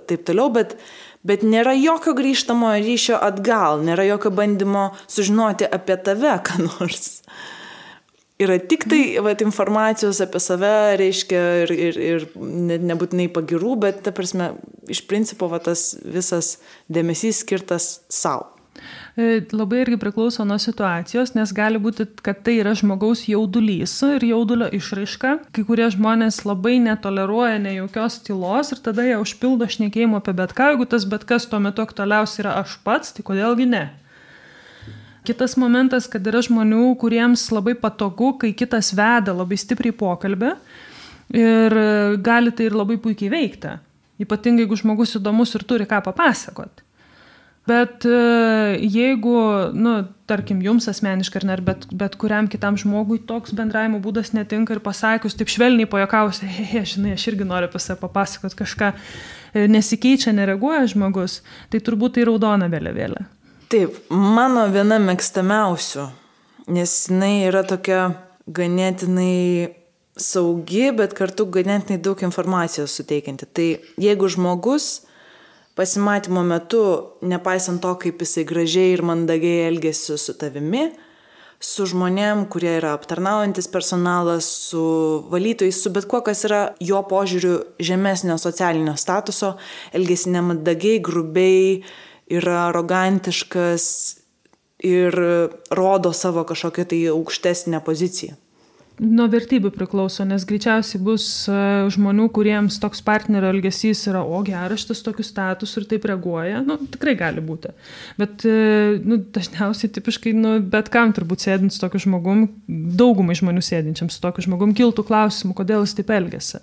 taip toliau, bet nėra jokio grįžtamojo ryšio atgal, nėra jokio bandymo sužinoti apie tave, ką nors. Yra tik tai informacijos apie save, reiškia, ir nebūtinai pagirų, bet, ta prasme, iš principo tas visas dėmesys skirtas savo. Labai irgi priklauso nuo situacijos, nes gali būti, kad tai yra žmogaus jaudulys ir jaudulio išraiška. Kai kurie žmonės labai netoleruoja nejaukios tylos ir tada jie užpildo šnekėjimo apie bet ką. Jeigu tas bet kas tuo metu aktualiausia yra aš pats, tai kodėlgi ne? Kitas momentas, kad yra žmonių, kuriems labai patogu, kai kitas veda labai stipriai pokalbį ir gali tai ir labai puikiai veikti. Ypatingai, jeigu žmogus įdomus ir turi ką papasakoti. Bet jeigu, tarkim, jums asmeniškai ar bet kuriam kitam žmogui toks bendravimo būdas netinka ir pasakius, taip švelniai pajuokausi, žinai, aš irgi noriu apie save papasakoti kažką, nesikeičia, nereaguoja žmogus, tai turbūt tai raudona vėliavėlė. Taip, mano viena mėgstamiausių, nes jinai yra tokia ganėtinai saugi, bet kartu ganėtinai daug informacijos suteikianti. Tai jeigu žmogus pasimatymo metu, nepaisant to, kaip jisai gražiai ir mandagiai elgėsi su tavimi, su žmonėm, kurie yra aptarnaujantis personalas, su valytojais, su bet kuo, kas yra jo požiūriu žemesnio socialinio statuso, elgėsi nemandagiai, grubiai, yra arogantiškas ir rodo savo kažkokią tai aukštesnę poziciją. Nuo vertybių priklauso, nes greičiausiai bus žmonių, kuriems toks partnerio elgesys yra, geras šitas tokius status ir taip reaguoja. Tikrai gali būti. Bet dažniausiai tipiškai, bet kam turbūt sėdint su tokiu žmogum, daugumai žmonių sėdinčiam su tokiu žmogum, kiltų klausimų, kodėl jis taip elgiasi.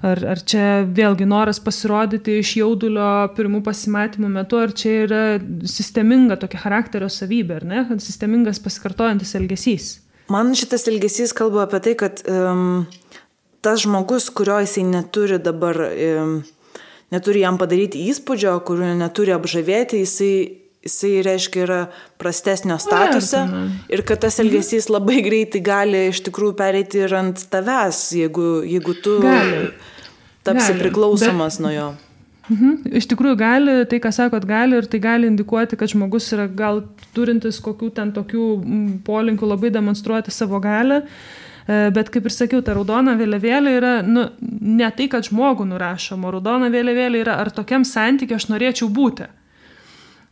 Ar čia vėlgi noras pasirodyti iš jaudulio pirmų pasimatymų metu, ar čia yra sisteminga tokia charakterio savybė, ar ne? Sistemingas pasikartojantis elgesys. Man šitas elgesys kalba apie tai, kad tas žmogus, kurio jisai neturi dabar, neturi jam padaryti įspūdžio, kurio neturi apžavėti, jisai reiškia yra prastesnio statuse ir kad tas elgesys labai greitai gali iš tikrųjų pereiti ir ant tavęs, jeigu tu tapsi priklausomas nuo jo. Iš tikrųjų gali, tai ką sakot, gali ir tai gali indikuoti, kad žmogus yra gal turintis kokių ten tokių polinkių labai demonstruoti savo galią, bet kaip ir sakiau, ta raudona vėliavėlė yra ne tai, kad žmogų nurašoma, raudona vėliavėlė yra, ar tokiam santykiu aš norėčiau būti.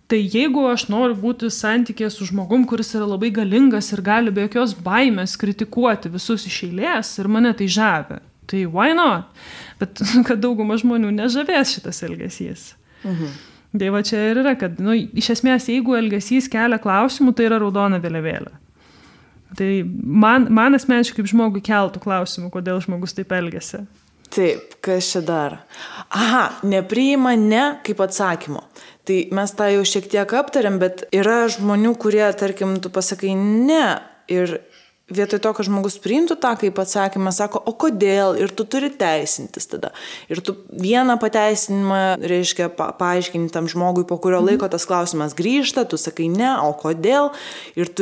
Tai jeigu aš noriu būti santykėje su žmogum, kuris yra labai galingas ir gali be jokios baimės kritikuoti visus iš eilės ir mane tai žavi, tai why not? Bet kad dauguma žmonių nežavės šitas elgesys. Tai va čia ir yra, kad iš esmės, jeigu elgesys kelia klausimų, tai yra raudona vėliavėlė. Tai man asmeniškai kaip žmogui keltų klausimų, kodėl žmogus taip elgiasi. Taip, kas čia dar? Nepriima ne kaip atsakymo. Tai mes tą jau šiek tiek aptarėm, bet yra žmonių, kurie, tarkim, tu pasakai ne ir vietoj to, kad žmogus priimtų tą kaip atsakymą, sako, o kodėl, ir tu turi teisintis tada. Ir tu vieną pateisinimą, reiškia, paaiškinti tam žmogui, po kurio laiko tas klausimas grįžta, tu sakai ne, o kodėl, ir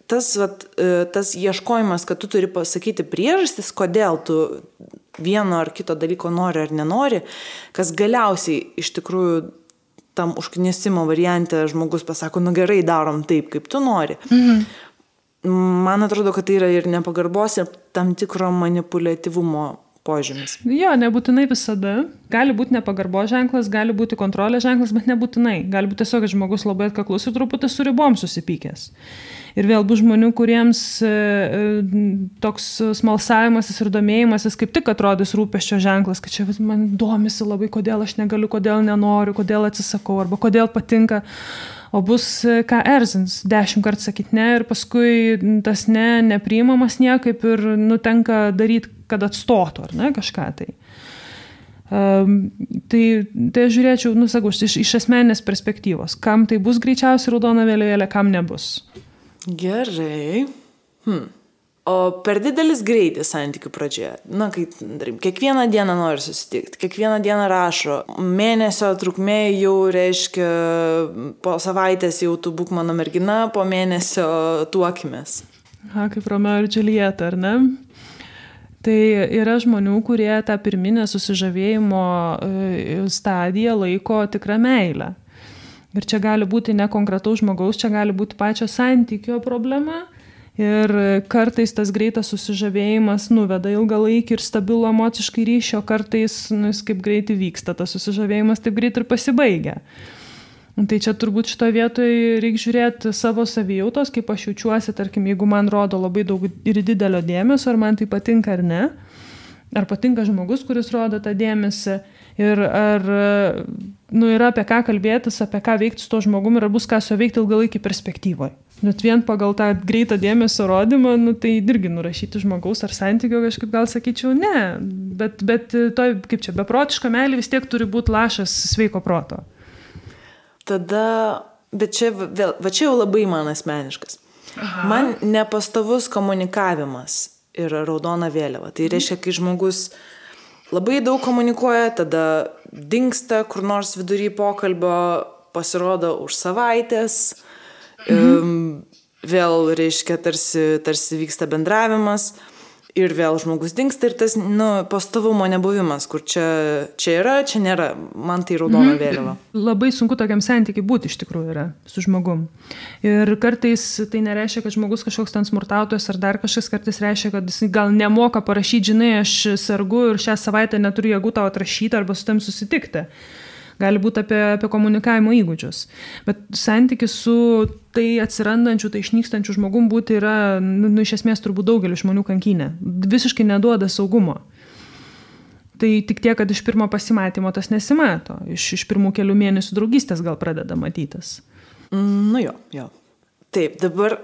tas ieškojimas, kad tu turi pasakyti priežastis, kodėl tu vieno ar kito dalyko nori ar nenori, kas galiausiai iš tikrųjų tam užknisimo variante žmogus pasako, gerai, darom taip, kaip tu nori. Man atrodo, kad tai yra ir nepagarbos, ir tam tikro manipuliatyvumo požymis. Jo, nebūtinai visada. Gali būti nepagarbos ženklas, gali būti kontrolės ženklas, bet nebūtinai. Gali būti tiesiog, kad žmogus labai atkaklus ir truputį su ribom susipykęs. Ir vėl bus žmonių, kuriems toks smalsavimasis ir domėjimasis kaip tik atrodys rūpesčio ženklas, kad čia man domisi labai, kodėl aš negaliu, kodėl nenoriu, kodėl atsisakau, arba kodėl patinka. O bus ką erzins, 10 kartų sakyti ne ir paskui tas nepriimamas niekaip ir tenka daryti, kad atstotų, ar ne, kažką tai. Tai aš žiūrėčiau, sakau, iš asmeninės perspektyvos, kam tai bus greičiausiai raudona vėliavėlė, kam nebus. Gerai. O per didelis greitis santykių pradžioje. Kai kiekvieną dieną nori susitikti, kiekvieną dieną rašo, mėnesio trukmė jau reiškia, po savaitės jau tu būk mano mergina, po mėnesio tuokimės. Kaip Romeo ir Džiuljeta, ar ne? Tai yra žmonių, kurie tą pirminę susižavėjimo stadiją laiko tikrą meilę. Ir čia gali būti ne konkretaus žmogaus, čia gali būti pačio santykio problema. Ir kartais tas greitas susižavėjimas nuveda ilgalaikį ir stabilų emociškai ryšį, o kartais jis kaip greitai vyksta, tas susižavėjimas taip greit ir pasibaigia. Tai čia turbūt šitoje vietoje reikia žiūrėti savo savijautos, kaip aš jaučiuosi, tarkim, jeigu man rodo labai daug ir didelio dėmesio, ar man tai patinka ar ne, ar patinka žmogus, kuris rodo tą dėmesį, ir ar yra apie ką kalbėtis, apie ką veikti su to žmogumi, ir ar bus ką su veikti ilgalaikį perspektyvoje. Net vien pagal tą greitą dėmesio rodymą, tai irgi nurašyti žmogaus ar santykio kažkaip gal sakyčiau ne, bet to, kaip čia, beprotiška meilė vis tiek turi būti lašas sveiko proto. Tada, bet čia jau labai man asmeniškas. Man nepastovus komunikavimas yra raudona vėliava. Tai reiškia, kai žmogus labai daug komunikuoja, tada dingsta kur nors vidury pokalbio, pasirodo už savaitės, vėl reiškia, tarsi vyksta bendravimas ir vėl žmogus dingsta ir tas pastovumo nebuvimas, kur čia yra, čia nėra, man tai raudona vėliava. Labai sunku tokiam santykiai būti iš tikrųjų yra su žmogum. Ir kartais tai nereiškia, kad žmogus kažkoks ten smurtautojas ar dar kažkas, kartais reiškia, kad jis gal nemoka parašyti, žinai, aš sergu ir šią savaitę neturiu jėgų tau atrašyti arba su tam susitikti. Gali būti apie komunikavimo įgūdžius. Bet santykis su tai atsirandančiu, tai išnykstančiu žmogum būti yra, iš esmės turbūt daugelį žmonių kankinė. Visiškai neduoda saugumo. Tai tik tiek, kad iš pirmo pasimatymo tas nesimato. Iš pirmų kelių mėnesių draugystės gal pradeda matytis. Jo. Taip, dabar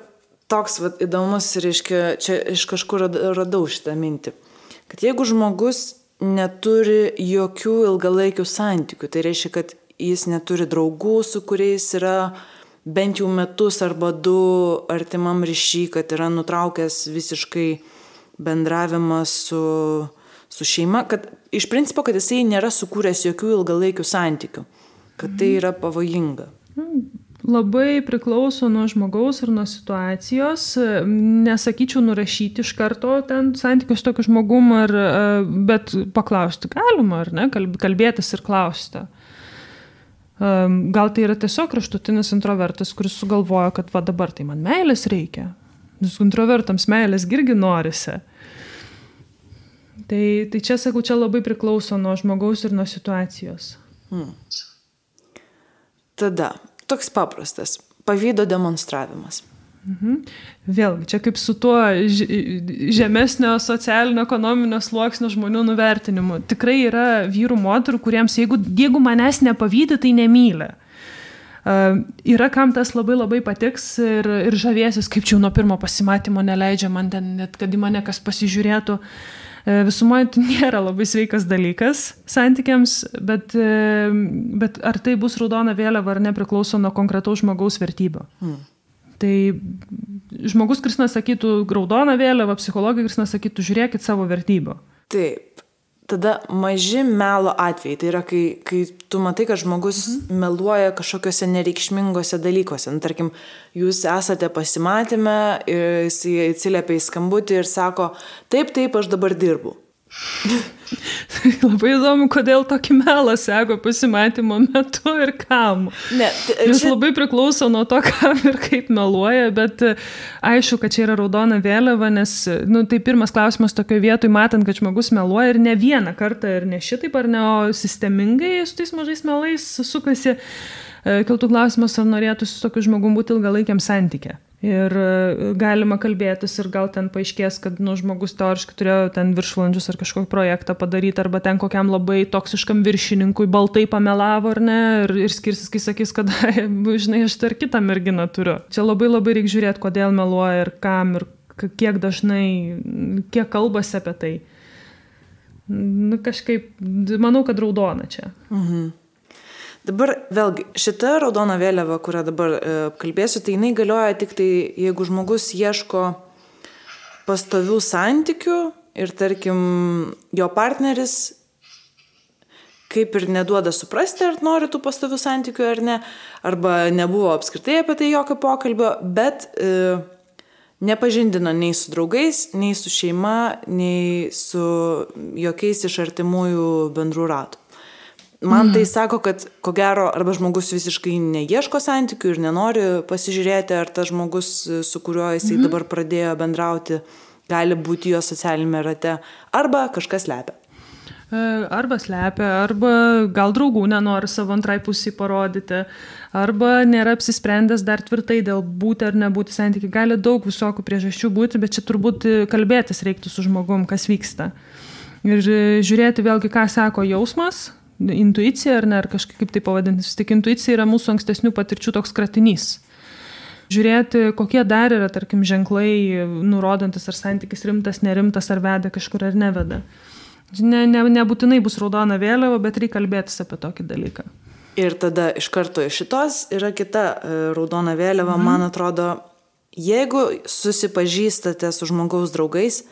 toks įdomus, reiškia, čia iš kažkur radau šitą mintį. Kad jeigu žmogus neturi jokių ilgalaikių santykių. Tai reiškia, kad jis neturi draugų, su kuriais yra bent jau metus arba 2 artimam ryšy, kad yra nutraukęs visiškai bendravimą su šeima, kad iš principo, kad jisai nėra sukūręs jokių ilgalaikių santykių, kad tai yra pavojinga. Labai priklauso nuo žmogaus ir nuo situacijos. Nesakyčiau nurašyti iš karto ten santykius tokiu žmogum, bet paklausti galima, ar ne? Kalbėtis ir klausti. Gal tai yra tiesiog kraštutinis introvertas, kuris sugalvojo, kad va dabar tai man meilės reikia. Nes introvertams meilės irgi norisi. Tai čia, sakau, čia labai priklauso nuo žmogaus ir nuo situacijos. Tada, toks paprastas, pavydo demonstravimas. Vėlgi, čia kaip su tuo žemesnio socialinio ekonominio sluoksnio žmonių nuvertinimu. Tikrai yra vyrų, moterų, kuriems jeigu manęs nepavydi, tai nemyli. Yra kam tas labai patiks ir žavėsis, kaip čia nuo pirmo pasimatymo neleidžia man ten, net kad į mane kas pasižiūrėtų. Visumoje tai nėra labai sveikas dalykas santykiams, bet ar tai bus raudona vėliava ar nepriklauso nuo konkretaus žmogaus vertybių. Tai žmogus, kuris sakytų raudona vėliava, psichologai, kuris sakytų žiūrėkit savo vertybių. Taip. Tada maži melo atvejai. Tai yra, kai tu matai, kad žmogus meluoja kažkokiuose nereikšmingose dalykuose. Tarkim, jūs esate pasimatyme, jis atsiliepia į skambutį ir sako, taip, aš dabar dirbu. Labai įdomu, kodėl tokį melą sako pasimatymo metu ir kam. Jis labai priklauso nuo to, kam ir kaip meluoja, bet aišku, kad čia yra raudona vėliava, nes tai pirmas klausimas tokioje vietoje, matant, kad žmogus meluoja ir ne vieną kartą ir ne šitaip ar ne, o sistemingai su tais mažais melais sukasi, kiltų klausimas, ar norėtų su tokiu žmogum būti ilgalaikiam santyke. Ir galima kalbėtis ir gal ten paaiškės, kad žmogus teoriškai turėjo ten viršvalandžius ar kažkokį projektą padaryti, arba ten kokiam labai toksiškam viršininkui baltai pamelavo ar ne, ir skirsis, kai sakys, kad, žinai, aš dar kitą merginą turiu. Čia labai reikia žiūrėti, kodėl meluoja ir kam ir kiek dažnai, kiek kalbasi apie tai. Kažkaip, manau, kad raudona čia. Dabar vėlgi, šita raudona vėliava, kurią dabar kalbėsiu, tai jinai galioja tik tai, jeigu žmogus ieško pastovių santykių ir, tarkim, jo partneris kaip ir neduoda suprasti, ar nori tų pastovių santykių ar ne, arba nebuvo apskritai apie tai jokio pokalbio, bet nepažindino nei su draugais, nei su šeima, nei su jokiais iš artimųjų bendrų ratų. Man tai sako, kad ko gero arba žmogus visiškai neieško santykių ir nenori pasižiūrėti, ar tas žmogus, su kuriuo jisai dabar pradėjo bendrauti, gali būti jo socialinėme rate, arba kažkas slepia. Arba slepia, arba gal draugų nenori savo antrai pusį parodyti, arba nėra apsisprendęs dar tvirtai dėl būti ar nebūti santykiai. Gali daug visokių priežasčių būti, bet čia turbūt kalbėtis reiktų su žmogum, kas vyksta. Ir žiūrėti vėlgi, ką sako jausmas, intuicija ar ne, ar kažkaip tai pavadinti. Tik intuicija yra mūsų ankstesnių patirčių toks kratinys. Žiūrėti, kokie dar yra, tarkim, ženklai, nurodantis, ar santykis rimtas, nerimtas, ar veda kažkur, ar neveda. Nebūtinai bus raudona vėliava, bet reikia kalbėtis apie tokį dalyką. Ir tada iš karto iš šitos yra kita raudona vėliava. Man atrodo, jeigu susipažįstate su žmogaus draugais,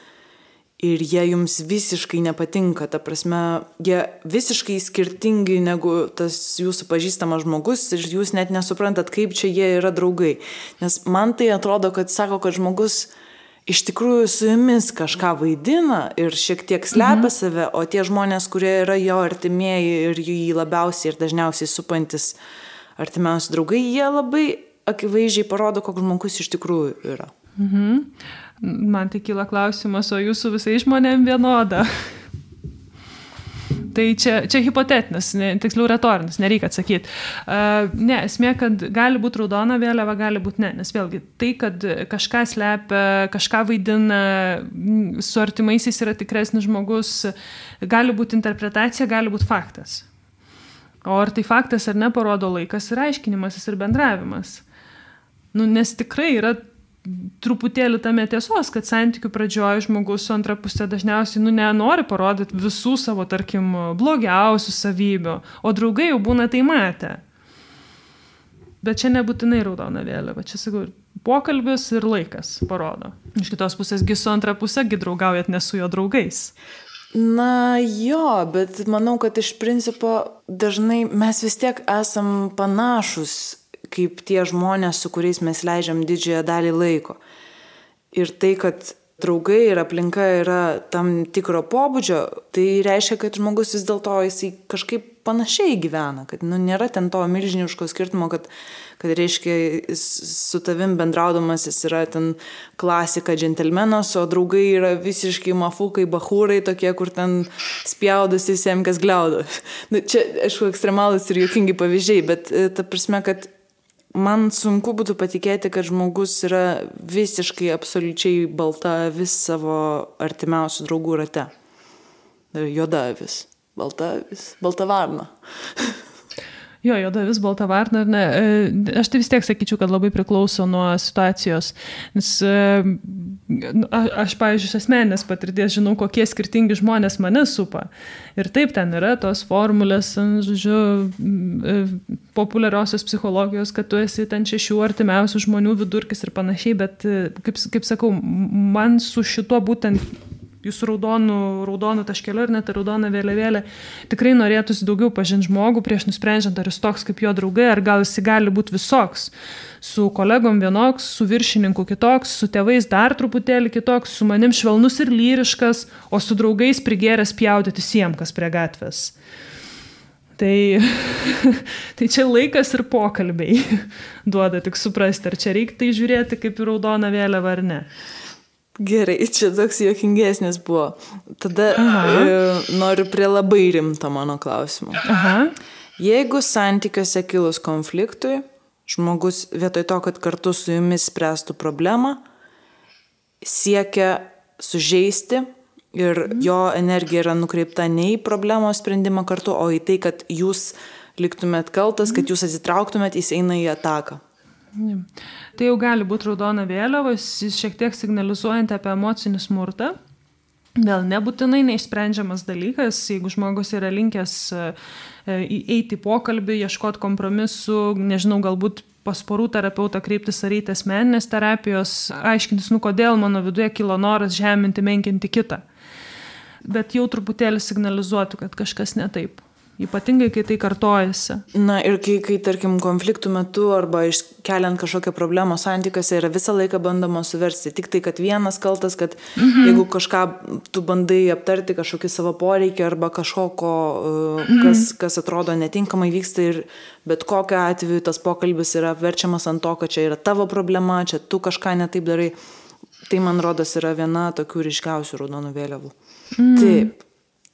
ir jie jums visiškai nepatinka, ta prasme, jie visiškai skirtingi negu tas jūsų pažįstamas žmogus ir jūs net nesuprantat, kaip čia jie yra draugai. Nes man tai atrodo, kad sako, kad žmogus iš tikrųjų su jumis kažką vaidina ir šiek tiek slepia save, o tie žmonės, kurie yra jo artimieji ir jį labiausiai ir dažniausiai supantis artimiausi draugai, jie labai akivaizdžiai parodo, koks žmogus iš tikrųjų yra. Man tai kyla klausimas, o jūsų visai žmonėm vienoda? Tai čia hipotetinis, tiksliau retorinis, nereikia atsakyti. Ne, esmė, kad gali būti raudona vėliava, gali būti ne. Nes vėlgi, tai, kad kažką slepia, kažką vaidina, su artimaisiais yra tikresnis žmogus, gali būti interpretacija, gali būti faktas. O ar tai faktas ar ne, parodo laikas ir aiškinimasis ir bendravimas. Nes tikrai yra truputėlį tame tiesos, kad santykių pradžioje žmogus su antra pusė dažniausiai nenori parodyti visų savo, tarkim, blogiausių savybių, o draugai jau būna tai matę. Bet čia nebūtinai raudona vėliava, čia sakau, pokalbis ir laikas parodo. Iš kitos pusės, su antra pusė draugaujat ne su jo draugais. Na jo, bet manau, kad iš principo dažnai mes vis tiek esam panašus, kaip tie žmonės, su kuriais mes leidžiam didžiąją dalį laiko. Ir tai, kad draugai ir aplinka yra tam tikro pobūdžio, tai reiškia, kad žmogus vis dėlto jisai kažkaip panašiai gyvena, kad nėra ten to milžiniško skirtumo, kad reiškia su tavim bendraudamas jis yra ten klasika džentelmenas, o draugai yra visiškai mafukai, bahūrai tokie, kur ten spjaudosi visiems, kas gliaudo. Čia, aišku, ekstremalus ir juokingi pavyzdžiai, bet ta prasme, kad man sunku būtų patikėti, kad žmogus yra visiškai absoliučiai balta vis savo artimiausių draugų rate. Juoda avis, balta avis, balta varna. Jo, juoda avis, balta varna, ar ne? Aš tai vis tiek sakyčiau, kad labai priklauso nuo situacijos. Nes aš, pavyzdžiui, iš asmeninės patirties žinau, kokie skirtingi žmonės mane supa. Ir taip ten yra tos formulės, žodžiu, populiariosios psichologijos, kad tu esi ten 6 artimiausių žmonių vidurkis ir panašiai, bet, kaip sakau, man su šituo būtent jūsų raudonų taškeliu ir net raudoną vėliavėlę tikrai norėtųsi daugiau pažinti žmogų prieš nusprendžiant, ar jis toks kaip jo draugai, ar gal jis gali būti visoks. Su kolegom vienoks, su viršininku kitoks, su tėvais dar truputėlį kitoks, su manim švelnus ir lyriškas, o su draugais prigėręs pjaudyti siem, kas prie gatvės. Tai čia laikas ir pokalbiai duoda tik suprasti, ar čia reikia tai žiūrėti kaip į raudoną vėliavą ar ne. Gerai, čia toks juokingesnis buvo. Tada noriu prie labai rimto mano klausimo. Jeigu santykiuose kilus konfliktui, žmogus vietoj to, kad kartu su jumis spręstų problemą, siekia sužeisti ir jo energija yra nukreipta ne į problemos sprendimą kartu, o į tai, kad jūs liktumėt kaltas, kad jūs atsitrauktumėt, jis eina į ataką. Tai jau gali būti raudona vėliava, šiek tiek signalizuojant apie emocinį smurtą. Vėl nebūtinai neišsprendžiamas dalykas, jeigu žmogus yra linkęs eiti į pokalbį, ieškoti kompromisų, nežinau, galbūt pas porų terapeutą kreiptis ar eiti asmeninės terapijos, aiškintis, kodėl mano viduje kilo noras žeminti, menkinti kitą. Bet jau truputėlį signalizuotų, kad kažkas ne taip. Ypatingai, kai tai kartojasi. Na ir kai tarkim, konfliktų metu arba iškeliant kažkokią problemą santykiuose yra visą laiką bandoma suversti. Tik tai, kad vienas kaltas, kad jeigu kažką tu bandai aptarti, kažkokį savo poreikį arba kažkoko, kas atrodo netinkamai vyksta ir bet kokiu atveju tas pokalbis yra verčiamas ant to, kad čia yra tavo problema, čia tu kažką netaip darai. Tai, man rodos, yra viena tokių ryškiausių raudonų vėliavų. Taip.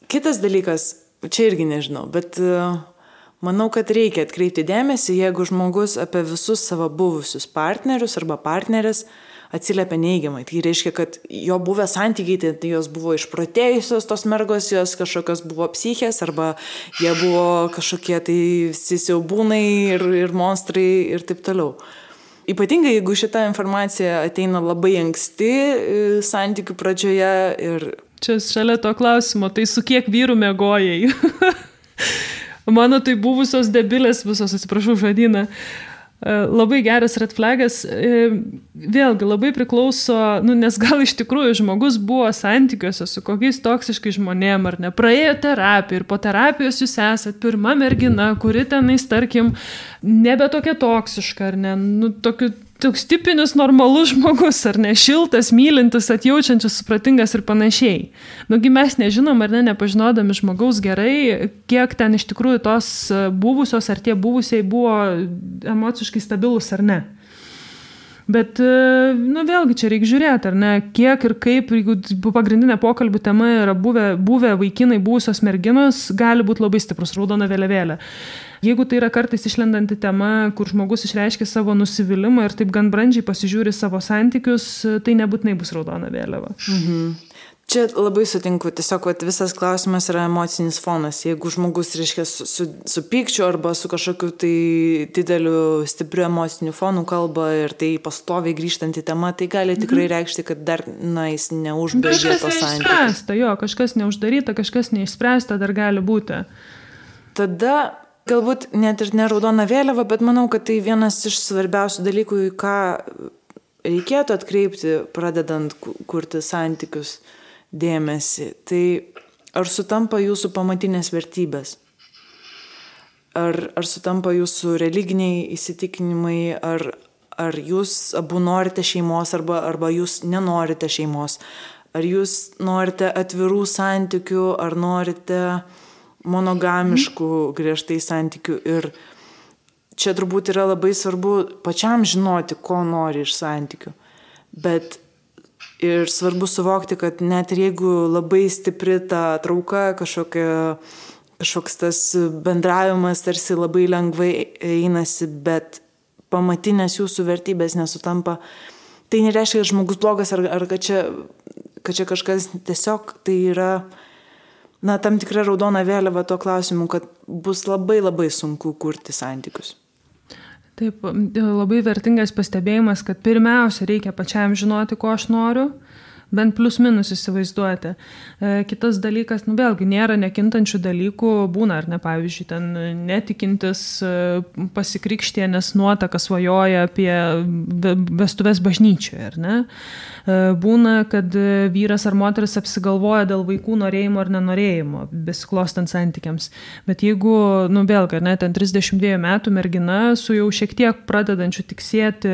Kitas dalykas, čia irgi nežinau, bet manau, kad reikia atkreipti dėmesį, jeigu žmogus apie visus savo buvusius partnerius arba partnerės atsiliepia neigiamai. Tai reiškia, kad jo buvę santykiai, tai jos buvo išprotėjusios tos mergos, jos kažkokios buvo psichės arba jie buvo kažkokie tai siaubūnai ir monstrai ir taip toliau. Ypatingai, jeigu šita informacija ateina labai anksti santykių pradžioje ir... Čia šalia to klausimo, tai su kiek vyrų miegojai? Mano tai buvusios debilės visos, atsiprašau žodyną. Labai geras red flagas. Vėlgi labai priklauso, nes gal iš tikrųjų žmogus buvo santykiuose su kokiais toksiškai žmonėm ar ne. Praėjo terapiją ir po terapijos jūs esat pirma mergina, kuri tenais, tarkim, nebe tokia toksiška ar ne. Toks tipinis normalus žmogus, ar ne, šiltas, mylintis, atjaučiantis, supratingas ir panašiai. Mes nežinom, ar ne, nepažinodami žmogaus gerai, kiek ten iš tikrųjų tos buvusios ar tie buvusiai buvo emociškai stabilus ar ne. Bet, vėlgi čia reikia žiūrėti, ar ne, kiek ir kaip, jeigu pagrindinė pokalbių tema yra buvę vaikinai, buvusios merginos, gali būti labai stiprus raudona vėliavėlė. Jeigu tai yra kartais išlendanti tema, kur žmogus išreiškia savo nusivylimą ir taip gan brandžiai pasižiūri savo santykius, tai nebūtinai bus raudona vėliava. Čia labai sutinku, tiesiog visas klausimas yra emocinis fonas. Jeigu žmogus, reiškia, su pykčiu arba su kažkokiu tai dideliu, stipriu emociniu fonu kalba ir tai pastoviai grįžtanti tema, tai gali tikrai reikšti, kad dar, jis neužbaigė to santykių. Kažkas neuždaryta, kažkas neišspręsta dar gali būti. Tada galbūt net ir ne raudona vėliava, bet manau, kad tai vienas iš svarbiausių dalykų, į ką reikėtų atkreipti, pradedant kurti santykius dėmesį. Tai ar sutampa jūsų pamatinės vertybės? ar sutampa jūsų religiniai įsitikinimai, ar jūs abu norite šeimos, arba jūs nenorite šeimos, ar jūs norite atvirų santykių, ar norite monogamiškų griežtai santykių. Ir čia turbūt yra labai svarbu pačiam žinoti, ko nori iš santykių. Bet ir svarbu suvokti, kad net ir jeigu labai stipri ta trauka, kažkoks tas bendravimas tarsi labai lengvai einasi, bet pamatinės jūsų vertybės nesutampa, tai nereiškia, kad žmogus blogas ar kad čia kažkas tiesiog tai yra tam tikra raudona vėliava tuo klausimu, kad bus labai labai sunku kurti santykius. Taip, labai vertingas pastebėjimas, kad pirmiausia reikia pačiam žinoti, ko aš noriu, bent plius minus įsivaizduoti. Kitas dalykas, vėlgi, nėra nekintančių dalykų, būna ar ne, pavyzdžiui, ten netikintis pasikrikštienės nuotaka svajoja apie vestuves bažnyčioje, ar ne? Būna, kad vyras ar moteris apsigalvoja dėl vaikų norėjimo ar nenorėjimo, besiklostant santykiams. Bet jeigu, vėlgi, ar ne, ten 32 metų mergina su jau šiek tiek pradedančiu tiksėti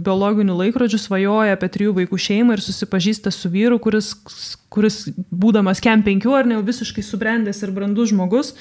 biologinių laikrodžių svajoja apie 3 vaikų šeimą ir susipažįsta su vyru, kuris būdamas kem 5 ar ne, visiškai subrendęs ir brandus žmogus,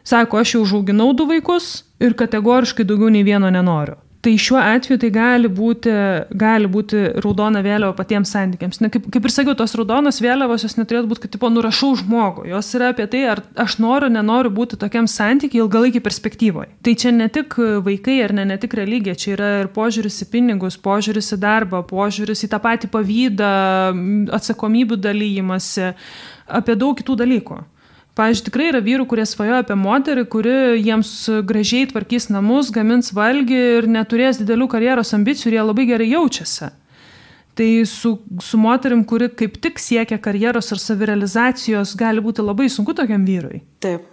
sako, aš jau užauginau 2 vaikus ir kategoriškai daugiau nei vieno nenoriu. Tai šiuo atveju tai gali būti raudona vėliava patiems santykiams. Kaip ir sakiau, tos raudonos vėliavos jos neturėtų būti, kad nurašau žmogų. Jos yra apie tai, ar aš nenoriu būti tokiam santykiai ilgalaikį perspektyvoje. Tai čia ne tik vaikai ar ne tik religija, čia yra ir požiūris į pinigus, požiūris į darbą, požiūris į tą patį pavydą, atsakomybių dalyjimąsi, apie daug kitų dalykų. Pavyzdžiui, tikrai yra vyrų, kurie svajoja apie moterį, kuri jiems gražiai tvarkys namus, gamins valgį ir neturės didelių karjeros ambicijų ir jie labai gerai jaučiasi. Tai su moterim, kuri kaip tik siekia karjeros ar savirealizacijos, gali būti labai sunku tokiam vyrui. Taip.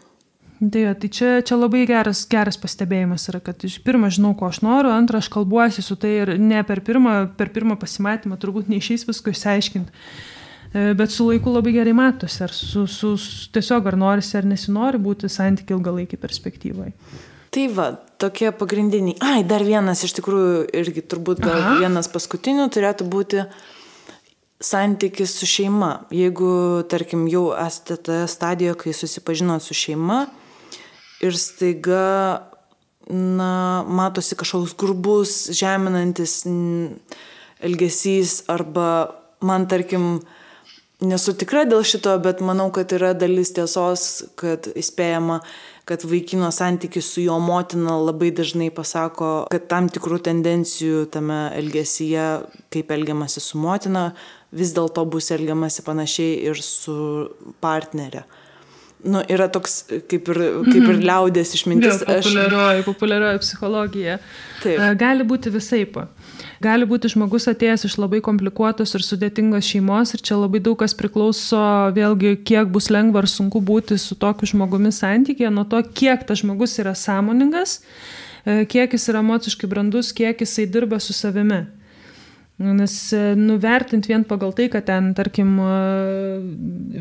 Tai čia labai geras pastebėjimas yra, kad pirmą žinau, ko aš noriu, antrą aš kalbuosi su tai ir ne per pirmą pasimatymą turbūt neišeis visko išsiaiškinti. Bet su laiku labai gerai matosi, ar tiesiog ar norisi ar nesinori būti santykiai ilgalaikį perspektyvai. Tai va, tokie pagrindiniai. Dar vienas iš tikrųjų irgi turbūt gal vienas paskutinių turėtų būti santykis su šeima. Jeigu, tarkim, jau esate toje stadijoje, kai susipažinot su šeima ir staiga, matosi kažkoks grubus, žeminantis elgesys arba man, tarkim, nesu tikra dėl šito, bet manau, kad yra dalis tiesos, kad įspėjama, kad vaikino santykis su jo motina labai dažnai pasako, kad tam tikrų tendencijų tame elgesyje, kaip elgiamasi su motina, vis dėlto bus elgiamasi panašiai ir su partnerė. Yra toks kaip ir liaudės išmintis. Populiarioji psichologija. Taip. Gali būti visaip. Gali būti žmogus atėjęs iš labai komplikuotos ir sudėtingos šeimos ir čia labai daug kas priklauso vėlgi, kiek bus lengva ar sunku būti su tokiu žmogumi santykyje, nuo to, kiek tas žmogus yra sąmoningas, kiek jis yra emociškai brandus, kiek jisai dirba su savimi. Nes nuvertint vien pagal tai, kad ten, tarkim,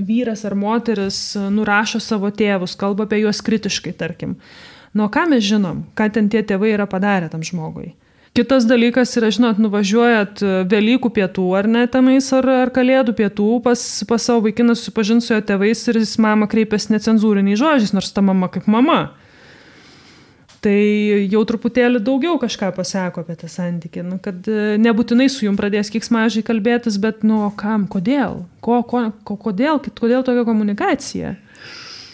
vyras ar moteris nurašo savo tėvus, kalba apie juos kritiškai, tarkim. Ką mes žinom, ką ten tie tėvai yra padarę tam žmogui? Kitas dalykas yra, žinot, nuvažiuojat Velykų pietų ar ne tenais, ar Kalėdų pietų pas savo vaikiną susipažint su jo tėvais ir jis mama kreipiasi necenzūriniais žodžiais, nors ta mama kaip mama. Tai jau truputėlį daugiau kažką pasako apie tą santykį, kad nebūtinai su jum pradės keiksmažiai kalbėtis, bet kam, kodėl? Kodėl tokia komunikacija?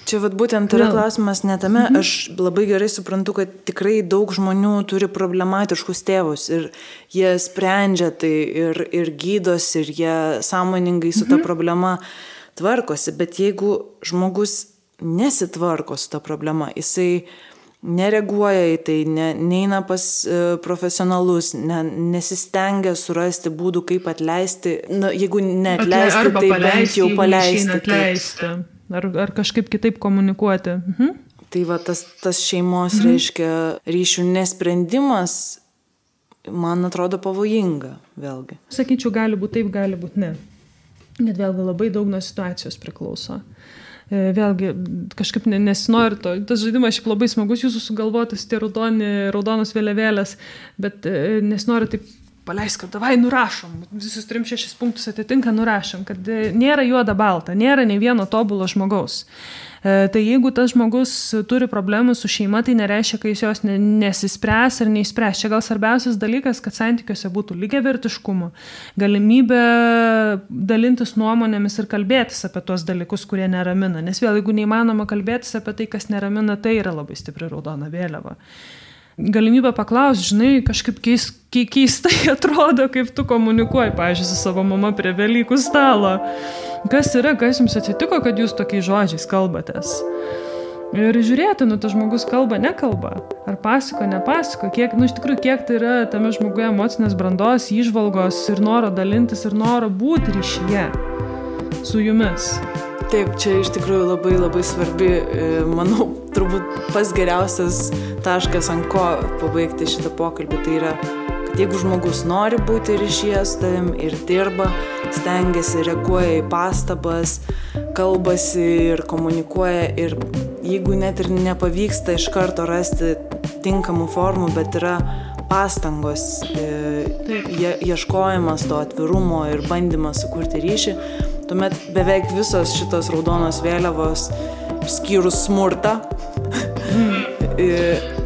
Čia būtent yra klausimas netame, aš labai gerai suprantu, kad tikrai daug žmonių turi problematiškus tėvus ir jie sprendžia tai ir gydosi ir jie sąmoningai su ta problema tvarkosi, bet jeigu žmogus nesitvarko su ta problema, jisai nereaguoja į tai, neina pas profesionalus, nesistengia surasti būdų, kaip atleisti, jeigu neatleisti, tai bent jau paleisti. Ar kažkaip kitaip komunikuoti. Tai tas šeimos reiškia ryšių nesprendimas, man atrodo pavojinga vėlgi. Sakyčiau, gali būti taip, gali būti ne. Net vėlgi labai daug nuo situacijos priklauso. Vėlgi, kažkaip nesinori to. Tas žaidimas šiaip labai smagus, jūsų sugalvotas tie raudonos vėliavėlės, bet nesinori taip paleisk, kad davai nurašom, visus 3-6 punktus atitinka, nurašom, kad nėra juoda balta, nėra nei vieno tobulo žmogaus. Tai jeigu tas žmogus turi problemų su šeima, tai nereiškia, kad jis jos nesispręs ar neišspręs. Čia gal svarbiausias dalykas, kad santykiuose būtų lygiavertiškumo, galimybė dalintis nuomonėmis ir kalbėtis apie tuos dalykus, kurie neramina. Nes vėl, jeigu neįmanoma kalbėtis apie tai, kas neramina, tai yra labai stipri raudona vėliava. Galimybę paklausti, žinai, kažkaip keistai atrodo, kaip tu komunikuoji, pavyzdžiui, su savo mama prie Velykų stalo. Kas yra, kas jums atsitiko, kad jūs tokiais žodžiais kalbatės? Ir žiūrėti, tas žmogus kalba, nekalba. Ar pasako, nepasako, iš tikrųjų, kiek tai yra tame žmoguje emocinės brandos, įžvalgos ir noro dalintis ir noro būti ryšyje su jumis. Taip, čia iš tikrųjų labai labai svarbi, manau, turbūt pats geriausias taškas, ant ko pabaigti šitą pokalbį, tai yra, kad jeigu žmogus nori būti ryšyje su tavim ir dirba, stengiasi, reaguoja į pastabas, kalbasi ir komunikuoja ir jeigu net ir nepavyksta iš karto rasti tinkamų formų, bet yra pastangos, ieškojimas to atvirumo ir bandymas sukurti ryšį, tuomet beveik visos šitos raudonos vėliavos, išskyrus smurtą,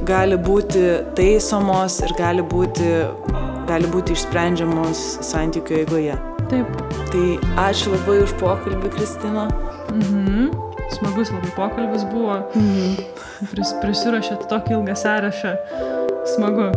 gali būti taisomos ir gali būti išsprendžiamos santykių eigoje. Taip. Tai ačiū labai už pokalbį, Kristina. Smagus labai pokalbis buvo. Prisiruošėt tokį ilgą sąrašą. Smagu.